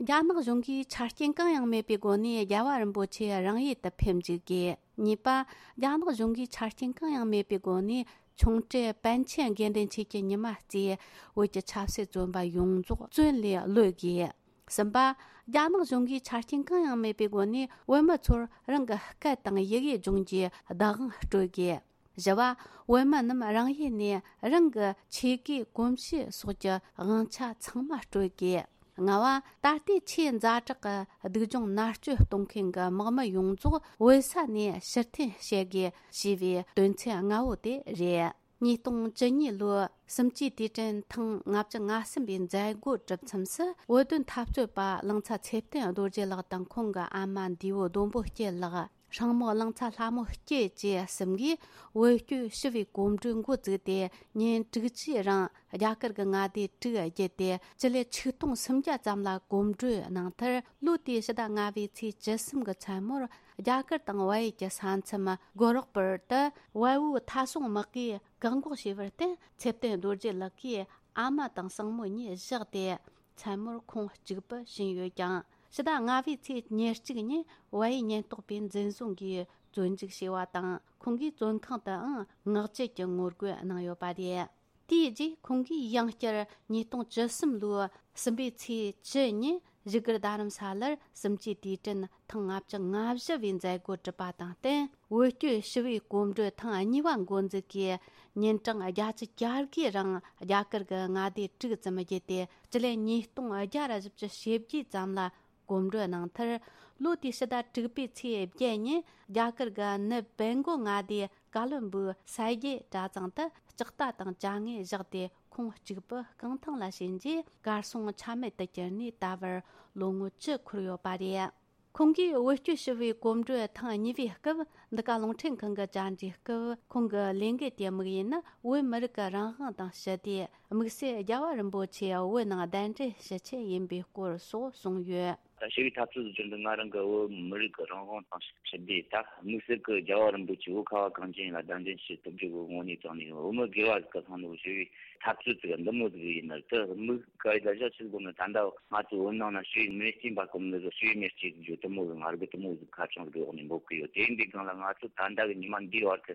རྒྱ་ནག་གཞུང་གིས་ཆ་རྐྱེན་གང་ཡང་མེད་པའི་སྒོ་ནས་རྒྱལ་བ་རིན་པོ་ཆེ་རང་ཡུལ་དུ་ཕེབས་འཇུག་དགོས། གཉིས་པ། རྒྱ་ནག་གཞུང་གིས་ཆ་རྐྱེན་གང་ཡང་མེད་པའི་སྒོ་ནས། ཆུང་གྲས་པཎ་ཆེན་དགེ་འདུན་ཆོས་ཀྱི་ཉི་མ་རྩིས། བོད་ཀྱི་ཆབ་སྲིད་བཙོན་པ་ཡོངས་རྫོགས་བཙོན་ལས་གློད་དགོས། གསུམ་པ། རྒྱ་ནག་གཞུང་གིས་ཆ་རྐྱེན་གང་ཡང་མེད་པའི་སྒོ་ནས་བོད་མི་ཚོར་རང་གི་སྐད་དང་ཡི་གེ་སྦྱོང་རྒྱུའི་བདག་དབང་སྤྲོད་དགོས། བཞི་བ། བོད་མི་རྣམས་རང་ཡུལ་ནས་རང་གི་ཆོས་གོས་གོམས་གཤིས་སོགས་ཀྱི་དབང་ཆ་ཚང་མ་སྤྲོད་དགོས། ལྔ་བ། ད་ལྟའི་ཆེས་ཛ་དྲག་གི་སྡུག་སྦྱོང་མནར་གཅོད་གཏོང་མཁན་གྱི་དམག་མི་ཡོངས་རྫོགས་བོད་ས་ནས་ཕྱིར་འཐེན་བྱེད་དགོས་ཞེས་པའི་དོན་ཚན་ལྔ་བོ་དེ་རེད། ཉིས་སྟོང་བཅུ་གཉིས་ལོའི་གསུམ་བཅུའི་དུས་དྲན་ཐེངས་ལྔ་བཅུ་ང་གསུམ་པའི་མཛད་སྒོ་གྲུབ་མཚམས་སུ། བོད་དོན་འཐབ་རྩོད་པ་གླིང་ཚ་ཚེ་བརྟན་རྡོ་རྗེ་ལགས་དང་ཁོང་གི་ཨ་མ་འདས་པོ་ལྡོམ་པོ་སྐྱིད་ལགས། སྲིང་མོ་གླིང་ཚ་ལྷ་མོ་སྐྱིད་བཅས་གསུམ་གྱིས་བོད་སྐྱོད་ཞི་བའི་གོམ་བགྲོད་འགོ་བཙུགས་ཏེ། ཉིན་དྲུག་ཅུའི་རིང་རྒྱ་གར་གྱི་མངའ་སྡེ་དྲུག་བརྒྱུད་དེ། སྤྱི་ལེ་ཆིག་སྟོང་སུམ་བརྒྱ་ཙམ་ལ་གོམ་བགྲོད་གནང་མཐར། ལོ་དེའི་ཕྱི་ཟླ་ལྔ་པའི་ཚེས་བཅུ་གསུམ་གྱི་མཚན་མོར། རྒྱ་གར་དང་བལ་ཡུལ་གྱི་ས་མཚམས་གོ་རོག་པུར་དུ། བལ་པོའི་མཐའ་སྲུང་དམག་གིས་བཀག་འགོག་བྱས་པར་བརྟེན། ཚེ་བརྟན་རྡོ་རྗེ་ལགས་ཀྱི་ཨ་མ་དང་སྲིང་མོ་གཉིས་བཞག་སྟེ། མཚན་མོར་ཁོང་གཅིག་པུ་ཕྱིན་ཡོད་ཀྱང་། ཕྱི་ཟླ་ལྔ་པའི་ཚེས་ཉེར་གཅིག་ཉིན་བལ་ཡུལ་ཉེན་རྟོག་པས་འཛིན་བཟུང་གིས་བཙོན་འཇུག་བྱས་པ་དང་། ཁོང་གིས་བཙོན་ཁང་དུའང་ངག་བཅད་ཀྱི་ངོ་རྒོལ་གནང་ཡོད་པ་རེད། དེའི་རྗེས་ཁོང་གིས་ཡང་བསྐྱར་ཉིས་སྟོང་བཅུ་གསུམ་ལོའི་གསུམ་པའི་ཚེས་བཅུ་ཉིན་བཞུགས་སྒར་རྡ་རམ་ས་ལར་གསུམ་བཅུའི་དུས་དྲན་ཐེངས་ལྔ་བཅུ་ང་བཞི་བའི་མཛད་སྒོ་གྲུབ་པ་དང་བསྟུན། བོད་སྐྱོད་ཞི་བའི་གོམ་བགྲོད་ཐེངས་གཉིས་པ་འགོ་འཛུགས་ཀྱིས། ཉིན་གྲངས་བརྒྱད་ཅུ་གྱ་དགུའི་རིང་རྒྱ་གར་གྱི་མངའ་སྡེ་དྲུག་ཙམ་བརྒྱུད་དེ། སྤྱི་ལེ་ཉིས་སྟོང་བརྒྱ་ར་བཞི་བཅུ་ཞེ་བརྒྱད་ཙམ་ལ་གོམ་བགྲོད་གནང་མཐར། ལོ་དེའི་ཕྱི་ཟླ་དྲུག་པའི་ཚེས་བརྒྱད་ཉིན་རྒྱ་གར་གྱི་ནུབ་བེང་གོ་མངའ་སྡེའི་ཀ་ལོན་སྦུག་ས་དགེ་གྲྭ་ཚང་དུ་ལྕགས་རྟ་དང་བཅའ་དངོས་བཞག་སྟེ། ཁོང་གཅིག་པུ་རྐང་ཐང་ལ་ཕྱིན་རྗེས། གར་སོང་ཆ་མེད་དུ་གྱུར་ནས་ད་བར་ལོ་ངོ་བཅུ་འཁོར་ཡོད་པ་རེད། ཁོང་གིས་བོད་སྐྱོད་ཞི་བའི་གོམ་བགྲོད་ཐེངས་གཉིས་པའི་སྐབས། འདི་ག་རླུང་འཕྲིན་ཁང་གི་བཅར་འདྲིའི་སྐབས། ཁོང་གི་ལས་འགུལ་དེའི་དམིགས་ཡུལ་ནི། བོད་མི་རིགས་ཀྱི་རང་དབང་དང་ཞི་བདེ། དམིགས་བསལ་རྒྱལ་བ་རིན་པོ་ཆེ་བོད་ནང་གདན་འདྲེན་ཞུ་ཆེད་ཡིན་པའི་སྐོར་སོགས་གསུངས་ཡོད། ད་ཞི་བའི་འཐབ་རྩོད་བརྒྱུད་འདི་ང་རང་གི་བོད་མི་རིགས་ཀྱི་རང་དབང་དང་ཞི་བདེ། ད་དམིགས་བསལ་གྱི་རྒྱལ་བ་རིན་པོ་ཆེ་བོད་ཁ་བ་གངས་ཅན་ཡིན་ལ་གདན་འདྲེན་ཞུ་ཐུབ་རྒྱུ་གི་ངོས་ནས་བཏང་ནས་བོད་མི་སྒེར་བ་ཟིག་གི་ཐོག་ནས་ཞི་བའི་འཐབ་རྩོད་ཟིག་འདི་མོ་ཟིག་ཡིན་ན། དེ་དམིགས་བཀར་ཡིད་ལ་བཞག་ཆེད་དགོས་ནི། ད་ལྟ་ང་ཚོ་བོད་ནང་ན་ཞི་བའི་མེ་སྐྱེས་འབར་གོ་མི་ཟིག་ཞི་བའི་མེ་སྐྱེས་རྒྱུ་དེ་མོ་གི་ང་རྒྱལ་དེ་མོ་ཟིག་ཁ་བྱང་གི་འོག་ནས་འབོད་གི་ཡོད། དེ་འདི་སྒང་ལ་ང་ཚོ་ད་ལྟ་གི་ཉི་མ་འདིའི་བར་དུ་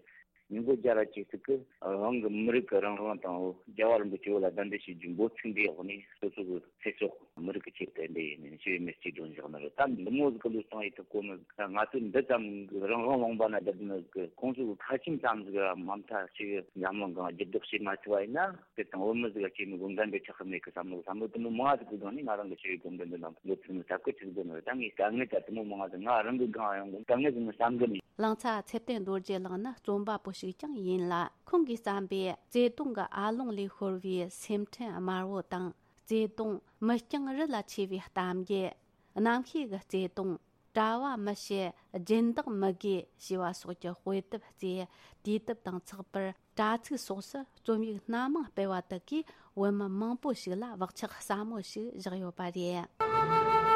ཉིས་སྟོང་བརྒྱ་ར་གཅིག་ཙིག་གི་རང་གི་མི་རིགས་ཀྱི་རང་དབང་དང་རྒྱལ་བ་རིན་པོ་ཆེ་བོད་ལ་གདན་འདྲེན་བྱེད་རྒྱུ་འབོད་ཚིག་འདིའི་འོག་ནས་སོ་སོ་གི་ཚེ་སྲོག་མི་རིགས་ཀྱི་ཆེད་དུ་འདི་ཡིན་ནས་ཞི་བའི་མེ་སྐྱེས་སྒྲོན་བཞག་ནི་རེད། ད་འདི་མོ་ཟིག་གི་ལུས་སྟངས་ཡིད་དུ་གོ་མི་ཟིག་ད་ང་ཚོས་འདི་ཙམ་གི་རང་དབང་ལུང་པ་ན་བསྡད་ནི་གི་ཁོང་ཚོ་གི་ཁ་ཆེམས་ཙམ་ཟིག་ར་མ་མཐའ་ཞིག་འཛམ་གླིང་གང་འགྱུར་ལྡོག་བྱེད་མ་ཐུབ་པ་ཡིན་ན། དེ་དང་བོད་མི་ཟིག་ག་སྐྱེས་ནི་གོ་འགན་འདི་ཆགས་གི་མེད་གི་བསམ་བློ་བསམ་བློ་དེ་མོ་མང་ཟིག་གི་སྒང་ནས་ང་རང་གི་ཞི་བའི་གོམ་བགྲོད་འདི་ནང་འགོ་ཚུགས་ནི་ཐབས་ཀི་ཆི་ཟིག་དགོས་ནི་རེད། ད་ངས་དཀའ་ངལ་ད་དེ་མོ་མང་ཟིག་ང་རང་གི་སྒང་ཡང་དཀའ་ངལ་ཟིག་ནི་བསམ་གི་མེད། གླིང་ཚ་ཚེ་བརྟན་རྡོ་རྗེ་གླིང་ནི་རྩོམ་པ་པོ་ཞིག་ཀྱང་ཡིན་ལ། ཁོང་གིས་བརྩམས་པའི་བརྩེ་དུང་གི་ཨ་ལོང་ལས་ཤོར་བའི་སེམས་ཁྲལ་དམར་བོ་དང་། བརྩེ་དུང་མི་རྐྱང་རི་ལ་ཆེ་བའི་གཏམ་རྒྱུད། རྣམ་ཤེས་ཀྱི་བརྩེ་དུང་། གྲྭ་བ་མི་བྱེད་སྦྱིན་བདག་མི་དགོས་ཞེས་པ་སོགས་ཀྱི་དཔེ་དེབ་བརྩིས། དུས་དེབ་དང་ཚགས་པར། དྲ་ཚིགས་སོགས་སུ་རྩོམ་ཡིག་སྣ་མང་སྤེལ་བ་དག་གིས་བོད་མི་མང་པོ་ཞིག་ལ་བག་ཆགས་ཟབ་མོ་ཞིག་བཞག་ཡོད་པ་རེད།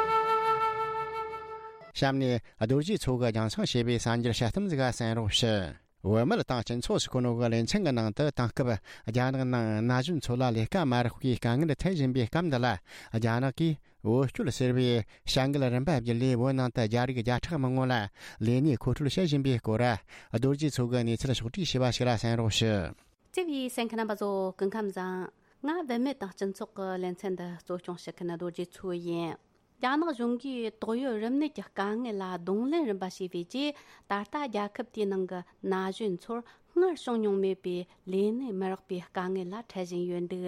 གཤམ་ནས་རྡོ་རྗེ་མཚོ་གིས་རྒྱང་སྲིང་བྱས་པའི་གསར་འགྱུར་དཔྱད་གཏམ་ཟིག་གསན་རོགས་ཞུ། བོད་མི་དང་སྤྱི་ཚོགས་སུ་ཁོ་ནོ་གི་ལེ་ཚན་གྱི་ནང་དུ་དེང་སྐབས་རྒྱ་ནག་ནང་ན་གཞོན་ཚོ་ལ་ལས་ཀ་མ་རག་པའི་དཀའ་ངལ་འཕྲད་བཞིན་པའི་སྐབས་འདི་ལ། རྒྱ་ནག་གིས་བོད་སྐྱོད་ཟེར་བའི་བྱ་འགུལ་རིམ་པ་བརྒྱུད་ལས་བོད་ནང་དུ་རྒྱ་རིགས་བརྒྱ་ཕྲག་མང་བོ་ལ་ལས་གནས་མཁོ་སྤྲོད་བྱེད་བཞིན་པའི་སྐོར། རྡོ་རྗེ་མཚོ་གིས་གནས་ཚུལ་ཕྱོགས་བསྒྲིགས་བྱས་པ་ཞིག་ལ་གསན་རོགས་ཞུ། བརྩེ་བའི་གསན་མཁན་རྣམ་པ་ཚོ་སྐུ་ཁམས་བཟང་། ང་བུད་མེད་དང་སྤྱི་ཚོགས་ཀྱི་ལེ་ཚན་འདི་གཙོ་སྐྱོང་བྱེད་མཁན་རྡོ་རྗེ་མཚོ་ཡིན། རྒྱ་ནག་གཞུང་གིས་ཏོག་དབྱིབས་རིམས་ནད་ཀྱི་དཀའ་ངལ་ལ་གདོང་ལེན་རིམ་པ་བྱས་པའི་རྗེས། ད་ལྟ་རྒྱལ་ཁབ་དེའི་ནང་གི་ན་གཞོན་ཚོར་སྔར་བྱུང་མྱོང་མེད་པའི་ལས་གནས་མི་རག་པའི་དཀའ་ངལ་ལ་འཕྲད་བཞིན་ཡོད་འདུག་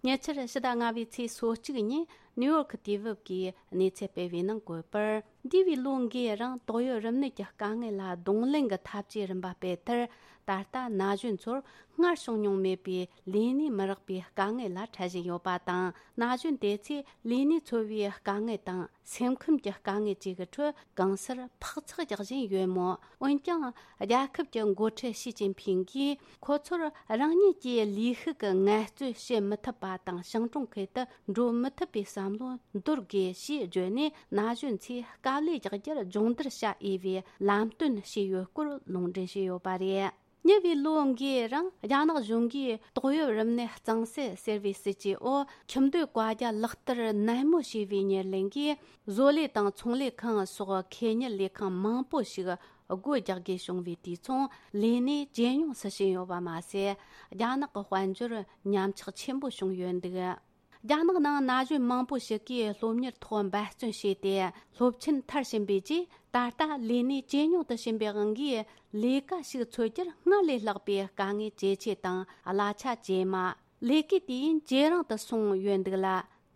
ཉེ་ཆར་ཕྱི་ཟླ་ལྔ་པའི་ཚེས་སོ་གཅིག་ཉིན་ནིའུ་ཡོག་དུས་བབ་ཀྱིས་གནས་ཚུལ་སྤེལ་བའི་ནང་བཀོད་པར། འདས་པའི་ལོ་འགའི་རིང་ཏོག་དབྱིབས་རིམས་ནད་ཀྱི་དཀའ་ངལ་ལ་གདོང་ལེན་གྱི་འཐབ་ཇུས་རིམ་པ་སྤེལ་མཐར། ད་ལྟ་ན་གཞོན་ཚོར་སྔར་བྱུང་མྱོང་མེད་པའི་ལས་གནས་མི་རག་པའི་དཀའ་ངལ་ལ་འཕྲད་བཞིན་ཡོད་པ་དང་། ན་གཞོན་དེ་ཚོས་ལས་གནས་འཚོལ་བའི་དཀའ་ངལ་དང་སེམས་ཁམས་ཀྱི་དཀའ་ངལ་བཅས་ཀྱི་ཁྲོད་གང་སར་འཕག་འཚག་རྒྱག་བཞིན་ཡོད་མོད། འོན་ཀྱང་རྒྱལ་ཁབ་ཀྱི་འགོ་ཁྲིད་ཞི་ཅིན་ཕིང་གིས་ཁོ་ཚོར་རང་ཉིད་ཀྱི་ལས་ཤུགས་ཀྱི་ངལ་རྩོལ་བྱེད་མི་ཐུབ་པ་དང་ཞིང་གྲོང་ཁུལ་དུ་འགྲོ་མི་ཐུབ་པའི་བསམ་བློ་འདོར་དགོས་ཞེས་བརྗོད་ནས། ན་གཞོན་ཚོས་དཀའ་ལས་རྒྱག་རྒྱུར་སྦྱོང་བརྡར་བྱ་འོས་པའི་ལམ་སྟོན་བྱས་ཡོད་སྐོར་ལུང་འདྲེན་བྱས་ཡོད་པ་རེད། ཉེ་བའི་ལོ་འགའི་རིང་རྒྱ་ནག་གཞུང་གིས་ཏོག་དབྱིབས་རིམས་ནད་གཙང་སེལ་ཟེར་བའི་སྲིད་ཇུས་འོག་ཁྱིམ་སྡོད་བཀའ་རྒྱ་ལག་བསྟར་ནན་མོ་བྱས་པའི་ཉེར་ལེན་གྱིས། བཟོ་ལས་དང་ཚོང་ལས་ཁང་སོགས་ཁེ་གཉེར་ལས་ཁང་མང་པོ་ཞིག་སྒོ་རྒྱག་དགོས་བྱུང་བའི་དུས་མཚུངས་ལས་གནས་ཇེ་ཉུང་དུ་ཕྱིན་ཡོད་པ་མ་ཟད། རྒྱ་ནག་གི་དཔལ་འབྱོར་ཉམས་ཆག་ཆེན་པོ་བྱུང་ཡོད་འདུག་རྒྱ་ནག་ནང་ན་གཞོན་མང་པོ་ཞིག་གིས་སློབ་གཉེར་ཐོག་འབད་བརྩོན་བྱས་ཏེ་སློབ་ཆེན་མཐར་ཕྱིན་པའི་རྗེས། ད་ལྟ་ལས་གནས་ཇེ་ཉུང་དུ་ཕྱིན་པའི་དབང་གིས། ལས་ཀ་ཞིག་འཚོལ་རྒྱུར་སྔར་ལས་ལྷག་པའི་དཀའ་ངལ་ཇེ་ཆེ་དང་གླ་ཆ་ཇེ་དམའ། ལས་ཀའི་དུས་ཡུན་ཇེ་རིང་དུ་སོང་ཡོད་འདུག་ལ།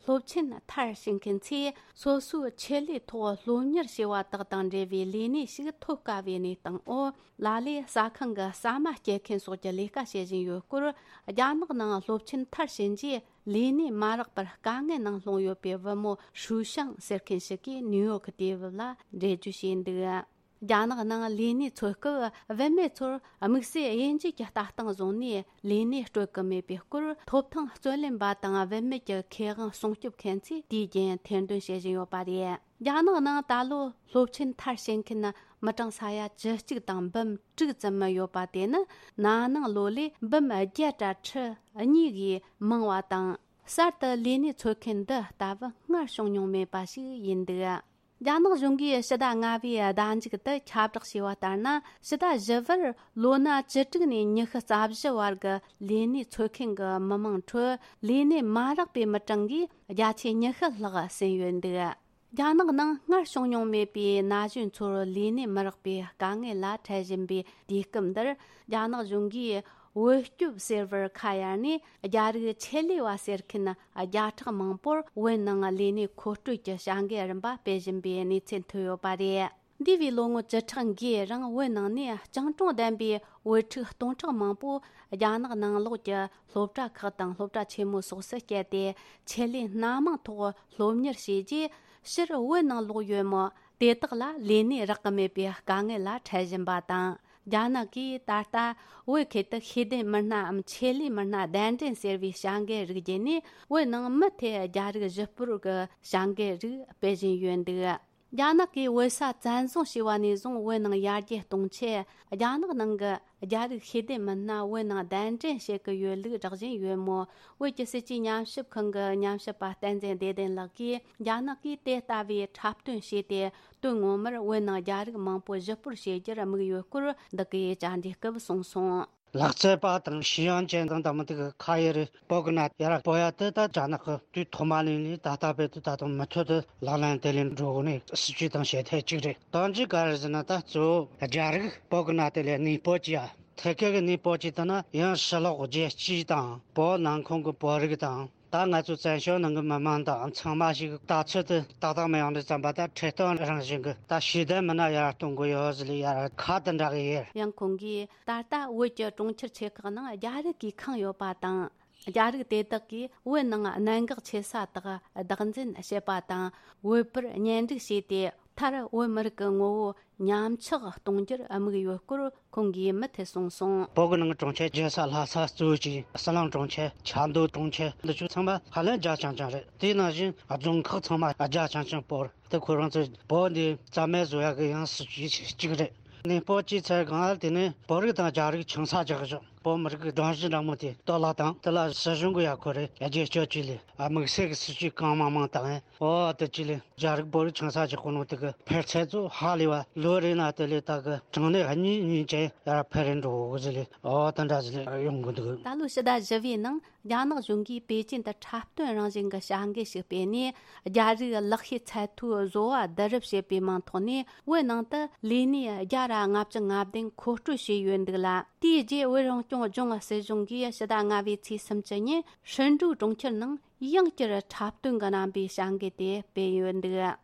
སློབ་ཆེན་མཐར་ཕྱིན་མཁན་ཚོས་སོ་སོའི་ཆེད་ལས་ཐོག་སློབ་གཉེར་བྱས་པ་དག་དང་འབྲེལ་བའི་ལས་གནས་ཤིག་ཐོབ་དཀའ་བའི་གནས་སྟངས་འོག་ལ་ལས་ཟ་ཁང་གི་ཟ་མ་སྐྱེལ་མཁན་སོགས་ཀྱི་ལས་ཀ་བྱེད་བཞིན་ཡོད་སྐོར། རྒྱ་ནག་ནང་སློབ་ཆེན་མཐར་ཕྱིན་རྗེས། ལས་གནས་མ་རག་པར་དཀའ་ངལ་ནང་ལྷུང་ཡོད་པའི་བུ་མོ་ཧྲུའུ་ཤང་ཟེར་མཁན་ཞིག་གིས་ནིའུ་ཡོག་དུས་བབ་ལ་འགྲེལ་བརྗོད་བྱས་འདུག་རྒྱ་ནག་ནང་ལས་གནས་འཚོལ་སྐབས། བུད་མེད་ཚོར་དམིགས་བསལ་དབྱེ་འབྱེད་ཀྱི་ལྟ་སྟངས་བཟུང་ནས་ལས་གནས་སྤྲོད་ཀྱི་མེད་པའི་སྐོར། ཐོབ་ཐང་རྩོད་ལེན་པ་དང་བུད་མེད་ཀྱི་ཁེ་དབང་སྲུང་སྐྱོབ་མཁན་ཚོས་དུས་རྒྱུན་ཐེར་འདོན་བྱེད་བཞིན་ཡོད་པ་རེད། རྒྱ་ནག་ནང་ད་ལོ་སློབ་ཆེན་མཐར་ཕྱིན་མཁན་མི་གྲངས་ས་ཡ་བཅུ་གཅིག་དང་འབུམ་དྲུག་ཙམ་ཡོད་པ་དེ་ནི་ན་ནིང་ལོ་ལས་འབུམ་བརྒྱད་དྲུག་གིས་མང་བ་དང་། གསར་དུ་ལས་གནས་འཚོལ་མཁན་འདི་ལྟ་བུ་སྔར་བྱུང་མྱོང་མེད་པ་ཞིག་ཡིན་འདུག་རྒྱ་ནག་གཞུང་གིས་ཕྱི་ཟླ་ལྔ་པའི་ཟླ་མཇུག་ཏུ་ཁྱབ་བསྒྲགས་བྱས་པ་ལྟར་ན། ཕྱི་ཟླ་བཞི་པར་ལོ་ན་བཅུ་དྲུག་ནས་ཉི་ཤུ་རྩ་བཞི་བར་གྱི་ལས་གནས་འཚོལ་མཁན་གྱི་མི་མང་ཁྲོད་ལས་གནས་མ་རག་པའི་མི་གྲངས་ཀྱིས་བརྒྱ་ཆ་ཉི་ཤུ་ལྷག་ཟིན་ཡོད་འདུག་རྒྱ་ནག་ནང་སྔར་བྱུང་མྱོང་མེད་པའི་ན་གཞོན་ཚོར་ལས་གནས་མི་རག་པའི་དཀའ་ངལ་ལ་འཕྲད་བཞིན་པའི་དུས་སྐབས་འདིར། རྒྱ་ནག་གཞུང་གིས་བོད་སྐྱོབ་ཟེར་བར་ཁ་གཡར་ནས། རྒྱ་རིགས་ཆེད་ལས་པ་ཟེར་མཁན་བརྒྱ་ཕྲག་མང་པོར་བོད་ནང་ལས་གནས་མཁོ་སྤྲོད་ཀྱི་བྱ་འགུལ་རིམ་པ་སྤེལ་བཞིན་པའི་གནས་ཚུལ་ཐོན་ཡོད་པ་རེད། འདས་པའི་ལོ་ངོ་བཅུ་ཕྲག་འགའི་རིང་བོད་ནང་ནས་སྤྱང་གྲུང་ལྡན་པའི་བོད་ཕྲུག་སྟོང་ཕྲག་མང་པོ་རྒྱ་ནག་ནང་ལོགས་ཀྱི་སློབ་གྲྭ་ཁག་དང་སློབ་གྲྭ་ཆེན་མོ་སོགས་སུ་བསྐྱལ་ཏེ། ཆེད་ལས་སྣ་མང་ཐོག་སློབ་གཉེར་བྱས་རྗེས། ཕྱིར་བོད་ནང་ལོག་ཡོད་མོད། དེ་དག་ལ་ལས་གནས་རག་གི་མེད་པའི་དཀའ་ངལ་ལ་འཕྲད་བཞིན་པ་དང་ རྒྱ་ནག་གིས་ད་ལྟ་བོད་ཁུལ་དུ་ཤེས་ལྡན་མི་སྣའམ་ཆེད་ལས་མི་སྣ་གདན་འདྲེན་ཟེར་བའི་བྱ་འགུལ་རིགས་བརྒྱུད་ནས། བོད་ནང་མུ་མཐུད་རྒྱ་རིགས་གཞི་སྤོར་གྱི་བྱ་འགུལ་རིགས་སྤེལ་བཞིན་ཡོད་འདུག་རྒྱ་ནག་གིས་བོད་ས་བཙན་བཟུང་བྱས་པ་ནས་བཟུང་། བོད་ནང་ཡར་རྒྱས་གཏོང་ཆེད་རྒྱ་ནག་ནང་གི་རྒྱ་རིགས་ཤེས་ལྡན་མི་སྣ་བོད་ནང་གདན་འདྲེན་བྱེད་ཀྱི་ཡོད་ལུགས་བསྒྲགས་བཞིན་ཡོད་མོད། བོད་ཀྱི་སྲིད་ཇུས་ཉམས་ཞིབ་ཁང་གི་ཉམས་ཞིབ་པ་བསྟན་འཛིན་བདེ་ལྡན་ལགས་ཀྱིས། རྒྱ་ནག་གིས་དེ་ལྟ་བུའི་འཁྲབ་སྟོན་བྱས་ཏེ། དོན་ངོ་མར་བོད་ནང་རྒྱ་རིགས་མང་པོ་གཞི་སྤོར་བྱེད་རྒྱུར་དམིགས་ཡོད་སྐོར། འདི་གའི་བཅར་འདྲིའི་སྐབས་གསུངས་སོང་། ལག་རྩལ་པ་དང་ཤེས་ཡོན་ཅན་དང་། དང་མི་དེ་གི་ཁ་ཡི་རེད། བོད་གི་ནང་ཡར་སྤོ་ཡ་དེ་ད་རྒྱ་ནག་གི་དུས་ཐོག་མ་ལས་ནས་ད་ལྟ་བར་དུ་ད་དུང་མུ་མཐུད་དུ་ལག་ལེན་དེ་ལས་འགྲོ་དགོས་ནས་སྲིད་ཇུས་དང་བྱེད་ཐབས་གཅིག་རེད། གཏམ་རྒྱུད་ག་རེ་ཟེར་ན། ད་གཙོ་བོ་རྒྱ་རིགས་བོད་གི་ནང་དེ་ལས་གནས་སྤོ་བྱེད་ཡ། ཐད་ཀའི་གནས་སྤོ་བྱེད་དེ་ན་ཡང་ཕྱི་ལོགས་རྒྱལ་སྤྱི་དང་བོད་ནང་ཁོངས་ཀྱི་བོད་རིགས་དང་། ད་ང་ཚོ་བཙན་བྱོལ་ནང་གི་མི་མང་དང་ཚང་མ་ཞིག་ལྟ་ཚུལ་དེ་ཏག་ཏག་མི་ཡོང་དུས་ཙམ་པ། ད་ཁྲིད་སྟོན་རང་བཞིན་གྱི་ད་ཤེས་ལྡན་མི་སྣ་ཡར་གཏོང་དགོས་ཡོད་ཟེར་ལས་ཡར་ཁ་དེ་འདྲ་གི་ཡོད། ཡང་ཁོང་གིས་ད་ལྟ་བོད་ཀྱི་གྲོང་ཁྱེར་ཆེ་ཁག་ནང་རྒྱ་རིགས་ཀྱིས་ཁེངས་ཡོད་པ་དང་། རྒྱ་རིགས་དེ་དག་གིས་བོད་ནང་གནད་འགག་ཆེ་ས་དག་བདག་འཛིན་བྱེད་པ་དང་། བོད་པར་གཉེན་སྒྲིག་བྱས་ཏེ། མཐར་བོད་མི་རིགས་ཀྱི་ངོ་བོ་ཉམས་ཆག་གཏོང་རྒྱུར་དམིགས་ཡོད་སྐོར་ཁོང་གིས་མུ་མཐུད་གསུངས་སོང་། བོད་ཀྱི་ནང་གི་གྲོང་ཁྱེར་རྒྱལ་ས་ལྷ་ས་གཙོ་བོ་གཅིག་ཟི་ལིང་གྲོང་ཁྱེར། ཆབ་མདོ་གྲོང་ཁྱེར། འདི་ཚོ་ཚང་མ་ཧ་ལས་རྒྱ་ཆུང་ཆུང་རེད། དེ་ནང་བཞིན་རྫོང་ཁག་ཚང་མ་རྒྱ་ཆུང་ཆུང་སྤོར། དེ་ཁོ་རང་ཚོས་བོད་འདི་རྩ་མེད་བཟོ་ཡག་གི་ཡང་སྲིད་ཇུས་གཅིག་རེད། གནས་སྤོ་བྱས་ཚར་གོང་ལ། དེ་ནས་བོད་རིགས་དང་རྒྱ་རིགས་ཆང་ས་རྒྱག་ཞོག་བོད་མི་རིགས་ཀྱི་སྒྲོམ་གཞི་འདྲ་མོ་དེ་གཏོར་བརླག་བཏང་། དེ་ལ་སྲིད་གཞུང་གི་ཡ་ཁོ་རེ་རྒྱ་སྐྱོད་ཅིག་ལས། ཨ། དམིགས་བསལ་གྱི་སྲིད་ཇུས་གང་མང་མང་བཏང་། ཨོ། དེ་ཅི་ལས་རྒྱ་རིགས་བོད་རིགས་ཆང་ས་ཅིག་གོ་ནོ་དེ་གི་འཕེལ་ཚད་ཚོ་ཧ་ལས་པ། ལོ་རེ་ན་དེ་ལས་ད་གི་གྲངས་ནས་གཉིས་གཉིས་ཅན་ཡར་འཕེལ་རེ་འགྲོ་གི་ཟེར་ལས། ཨོ། དེ་འདྲ་ཟེར་ལས་ཡོང་གི་འདུག་ད་ལོ་ཕྱི་ཟླ་བཞི་པའི་ནང་རྒྱ་ནག་གཞུང་གིས་པེ་ཅིན་དུ་འཁྲབ་སྟོན་རང་བཞིན་གྱི་བྱ་འགུལ་ཞིག་སྤེལ་ནས། རྒྱ་རིགས་ལག་ཤེས་ཚད་མཐོའི་བཟོ་བ་བསྡུ་རུབ་བྱེད་པའི་མིང་ཐོག་ནས། བོད་ནང་དུ་ལས་གནས་བརྒྱ་དང་ལྔ་བཅུ་ང་བདུན་མཁོ་སྤྲོད་བྱས་ཡོད་འདུག་ལ། དེའི་རྗེས་བོད་རང་སྐྱོང་ལྗོངས་སྲིད་གཞུང་གིས་ཕྱི་ཟླ་ལྔ་པའི་ཚེས་སུམ་ཅུ་ཉིན་ཧྲིན་ཀྲུའུ་གྲོང་ཁྱེར་ནང་ཡང་བསྐྱར་འཁྲབ་སྟོན་གྱི་རྣམ་པའི་བྱ་འགུལ་དེ་སྤེལ་ཡོད་འདུག་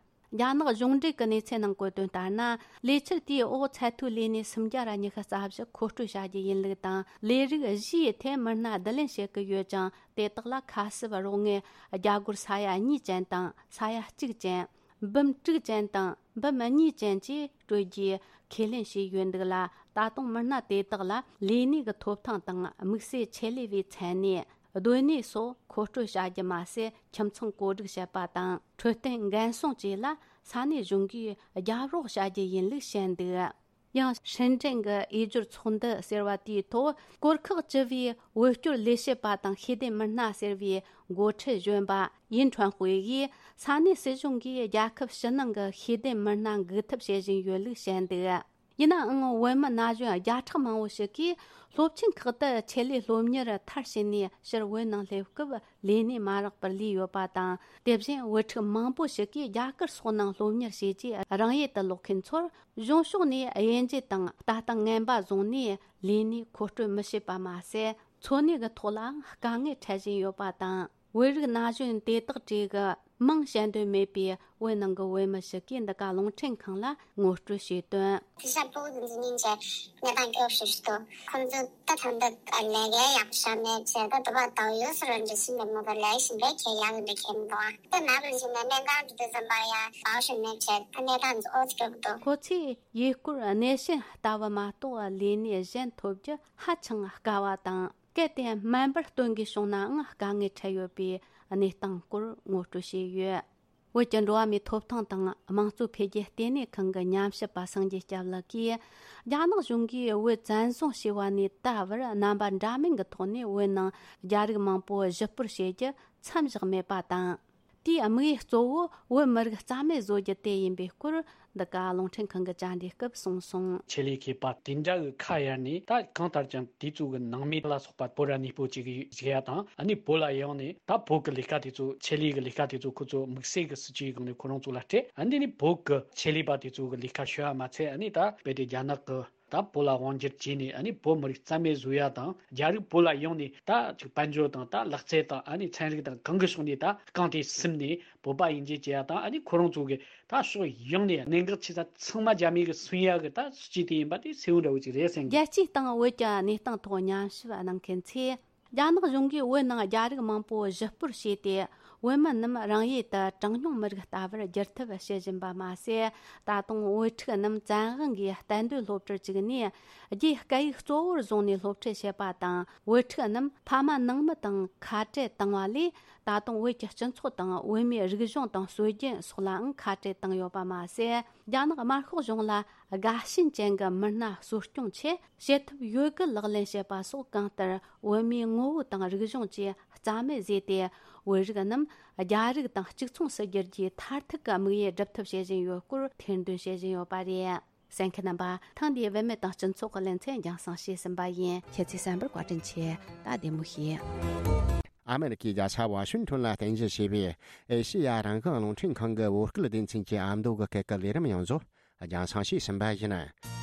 རྒྱ་ནག་གཞུང་འབྲེལ་གྱི་གནས་ཚུལ་ནང་བཀོད་དོན་ལྟར་ན། ལས་འཆར་དེའི་འོག་ཚད་མཐོའི་ལས་གནས་སུམ་བརྒྱ་ར་ཉི་ཤུ་རྩ་བཞི་མཁོ་སྤྲོད་བྱ་རྒྱུ་ཡིན་ལུགས་དང་། ལས་རིགས་བཞིའི་ཐད་མི་སྣ་བསྡུ་ལེན་བྱེད་ཀྱི་ཡོད་ཅིང་། དེ་དག་ལ་ཁ་གསབ་རོགས་དངུལ་རྒྱ་སྒོར་ས་ཡ་གཉིས་ཅན་དང་ས་ཡ་གཅིག་ཅན། འབུམ་དྲུག་ཅན་དང་འབུམ་གཉིས་ཅན་བཅས་སྤྲོད་རྒྱུའི་ཁས་ལེན་བྱས་ཡོད་འདུག་ལ། ད་དུང་མི་སྣ་དེ་དག་ལ་ལས་གནས་ཀྱི་ཐོབ་ཐང་དང་། དམིགས་བསལ་ཆེད་ལས་པའི་མཚན་གནས། སྡོད་གནས་སོགས་མཁོ་སྤྲོད་བྱ་རྒྱུ་མ་ཟད། ཁྱིམ་ཚང་བཀོད་སྒྲིག་བྱེད་པ་དང་། འཕྲོད་བསྟེན་འགན་སྲུང་བཅས་ལ་ས་གནས་གཞུང་གིས་རྒྱབ་རོགས་བྱ་རྒྱུ་ཡིན་ལུགས་བཤད་འདུག་ཡང་ཧྲིན་ཀྲེན་གྱི་འོས་སྦྱོར་ཚོགས་འདུ་ཟེར་བ་དེའི་ཐོག་གོར་ཁག་བཅུ་པའི་བོད་སྐྱོར་ལས་བྱེད་པ་དང་ཤེས་ལྡན་མི་སྣ་ཟེར་བའི་འགོ་ཁྲིད་གཞོན་པ་ཡིན་ཁྲོན་ཧུའེ་ཡིས། ས་གནས་སྲིད་གཞུང་གིས་རྒྱལ་ཁབ་ཕྱི་ནང་གི་ཤེས་ལྡན་མི་སྣ་འགུག་ཐབས་བྱེད་བཞིན་ཡོད་ལུགས་བཤད་འདུག་ཡིན་ནའང་། བོད་མི་ན་གཞོན་བརྒྱ་ཕྲག་མང་བོ་ཞིག་གིས་སློབ་ཆེན་ཁག་ཏུ་ཆེད་ལས་སློབ་གཉེར་མཐར་ཕྱིན་ནས། ཕྱིར་བོད་ནང་སླེབས་སྐབས་ལས་གནས་མ་རག་པར་ལུས་ཡོད་པ་དང་། དེ་བཞིན་བུ་ཕྲུག་མང་པོ་ཞིག་གིས་རྒྱ་གར་སོགས་ནང་སློབ་གཉེར་བྱས་རྗེས་རང་ཡུལ་དུ་ལོག་མཁན་ཚོར། གཞུང་ཕྱོགས་ནས་དབྱེ་འབྱེད་དང་ལྟ་སྟངས་ངན་པ་བཟུང་ནས། ལས་གནས་མཁོ་སྤྲོད་མི་བྱེད་པ་མ་ཟད། འཚོ་གནས་ཀྱི་ཐོག་ལའང་དཀའ་ངལ་འཕྲད་བཞིན་ཡོད་པ་དང་། བོད་རིགས་ན་གཞོན་དེ་དག་གྲས་ཀྱི་མིང་བཤད་འདོད་མེད་པའི་བོད་ནང་གི་བོད་མི་ཞིག་གིས་འདི་ག་རླུང་འཕྲིན་ཁང་ལ་ངོ་སྤྲོད་བྱས་དོན། དེང་སང་བོད་ཀྱི་འཛམ་གླིང་གི་གནས་སྟངས་སྐྱོ་ཤོས་ཤིག་འདུག་ཁོང་ཚོ་ད་ཐང་འདི་ལས་ཀའི་ཡག་ཤོས་མེད་ཅེས། ད་དུ་བ་དང་ཡོད་སར་འདྲི་སྲིད་པའི་མི་ག་ལས་ཞིང་པའི་ཁྱེད་ཡག་འདི་ཁྱེད་མི་འདུག་ཨ། ད་ནག་ལ་ཞིག་ནས་གནས་སྟངས་འདི་འཛམ་པ་ཡ་བའོ་ཤིང་མེད་ཅེས། ད་གནས་སྟངས་འདི་ཨོ་ཙི་སྐྱོ་གི་འདུག་ཁོ་ཚོས་ཡུལ་སྐོར་གནས་ཆེན་ལྟ་བུ་མ་གཏོགས་ལས་གནས་གཞན་ཐོབ་རྒྱུ་ཧ་ཅང་དཀའ་བ་དང་། གལ་ཏེ་སྨན་པར་སྟོན་དགོས་བྱུང་ནའང་དཀའ་ངལ་འཕྲད་ཡོད་པའི་གནས་སྟངས་སྐོར་ངོ་སྤྲོད་བྱས་ཡོད། བོད་ཀྱི་འགྲོ་བ་མིའི་ཐོབ་ཐང་དང་དམངས་གཙོ་འཕེལ་རྒྱས་ལྟེ་གནས་ཁང་གི་ཉམས་ཞིབ་པ་སངས་རྒྱས་སྐྱབས་ལགས་ཀྱིས། རྒྱ་ནག་གཞུང་གིས་བོད་བཙན་བཟུང་བྱས་པ་ནས་ད་བར་རྣམ་པ་འདྲ་མིན་གྱི་ཐོག་ནས་བོད་ནང་རྒྱ་རིགས་མང་པོ་གཞི་སྤོར་བྱེད་རྒྱུ་མཚམས་བཞག་མེད་པ་དང་། དེའི་དམིགས་ཡུལ་གཙོ་བོ་བོད་མི་རིགས་རྩ་མེད་བཟོ་རྒྱུ་དེ་ཡིན་པའི་སྐོར། འདི་ག་རླུང་འཕྲིན་ཁང་གི་བཅར་འདྲིའི་སྐབས་གསུངས་སོང་། ཆེད་ལས་མཁས་པ་དེ་འདྲ་གི་ཁ་གཡར་ནས། ད་གང་ལྟར་ཀྱང་དེ་ཚོ་གི་ནང་མི་ལ་སོགས་པ་བོད་ར་གནས་སྤོ་བྱེད་ཀྱི་ཡོད་ཟེར་ཡ་དང་། ཨ་ནི་བོད་ལ་ཡོང་ནས་ད་བོད་ཀྱི་ལས་ཀ་དེ་ཚོ། ཆེད་ལས་ཀྱི་ལས་ཀ་དེ་ཚོ་ཁོ་ཚོ་དམིགས་བསལ་གྱི་སྲིད་ཇུས་སྒང་ནས་ཁོ་རང་ཚོ་ལ་སྤྲད། ཨ་ནི་ནི་བོད་ཀྱི་ཆེད་ལས་པ་དེ་ཚོ་གི་ལས་ཀ་ཤོད་ཡ་མ་ཚད། ཨ་ནི་ད་རྦད་དེ་རྒྱ་ནག་གི་ད་བོད་ལ་དབང་སྒྱུར་བྱས་ནས། ཨ་ནི་བོད་མི་རིགས་རྩ་མེད་བཟོ་ཡ་དང་། རྒྱ་རིགས་བོད་ལ་ཡོང་ནས་ད་ཅིག་དཔལ་འབྱོར་དང་། ད་ལག་རྩལ་དང་། ཨ་ནི་ཚན་རིག་དང་། གང་གི་ཕྱོགས་ནས་ད་རྐང་དེ་ཟིན་ནས་བོད་པ་ཡིན་གཅིག་བྱེད་ཡ་དང་། ཨ་ནི་ཁོ་རང་ཚོ་གི་ད་ཕྱོགས་ཡོངས་ནས་གནད་འགག་ཆེ་ས་ཚང་མ་རྒྱ་མི་གིས་སུན་ཡ་གི་ད་སྲིད་ཇུས་དེ་ཡིན་པ་དེ་གསལ་བོ་འདྲ་བོ་ཅིག་རེད་བསམ་གི། རྒྱལ་སྤྱིའི་སྟེང་བོད་ཀྱི་གནས་སྟངས་ཐོག་ཉམས་ཞིབ་གནང་མཁན་ཚོས། རྒྱ་ནག་གཞུང་གིས་བོད་ནང་རྒྱ་རིགས་མང་པོ་གཞི་སྤོར་བྱས་ཏེ། བོད་མི་རྣམས་རང་ཡུལ་དུ་གྲངས་ཉུང་མི་རིགས་ལྟ་བུར་བསྒྱུར་ཐབས་བྱེད་བཞིན་པ་མ་ཟད། ད་དུང་བོད་ཕྲུག་རྣམས་བཙན་དབང་གིས་གཏན་སྡོད་སློབ་གྲྭར་བཅུག་ནས། རྒྱའི་སྐད་ཡིག་གཙོ་བོར་བཟུང་ནས་སློབ་ཁྲིད་བྱེད་པ་དང་། བོད་ཕྲུག་རྣམས་ཕ་མ་ནང་མི་དང་ཁ་བྲལ་བཏང་བ་ལས། ད་དུང་བོད་ཀྱི་སྤྱི་ཚོགས་དང་བོད་མིའི་རིག་གཞུང་དང་སྲོལ་རྒྱུན་སོགས་ལའང་ཁ་བྲལ་བཏང་ཡོད་པ་མ་ཟད། རྒྱ་ནག་དམར་ཤོག་གཞུང་ལ་དགའ་ཞེན་ཅན་གྱི་མི་སྣ་གསོ་སྐྱོང་ཆེད་བྱེད་ཐབས་ཡོད་དགུ་ལག་ལེན་བྱེད་པ་སོགས། གང་ལྟར་བོད་མིའི་ངོ་བོ་དང་རིག་གཞུང་བཅས་རྩ་མེད་བཟོས་ཏེ། བོད་རིགས་རྣམས་རྒྱ་རིགས་དང་གཅིག་མཚུངས་སུ་འགྱུར་རྒྱུའི་མཐར་ཐུག་གི་དམིགས་ཡུལ་སྒྲུབ་ཐབས་བྱེད་བཞིན་ཡོད་སྐོར་ཐེར་འདོན་བྱེད་བཞིན་ཡོད་པ་རེད། གསན་མཁན་རྣམ་པ། ཐེངས་འདིའི་བུད་མེད་དང་སྤྱི་ཚོགས་ཀྱི་ལེ་ཚན་རྒྱང་སྲིང་བྱས་ཟིན་པ་ཡིན། ཁྱེད་ཚོས་གསན་པར་བཀའ་དྲིན་ཆེ། ད་བདེ་མོ་བྱོས། ཨ་མེ་རི་ཁའི་རྒྱལ་ས་ཝ་ཤིང་ཊོན་ལ་རྟེན་གཞི་བྱས་པའི་ཨེ་ཤེ་ཡ་རང་དབང་རླུང་འཕྲིན་ཁང་གི་བོད་སྐད་སྡེ་ཚན་གྱི་ཨ་མདོ་གི་སྐད་ཀྱི་ལས་རིམ་ཡོངས་རྫོགས་རྒྱང་སྲིང་བྱས་ཟིན་པ་ཡིན།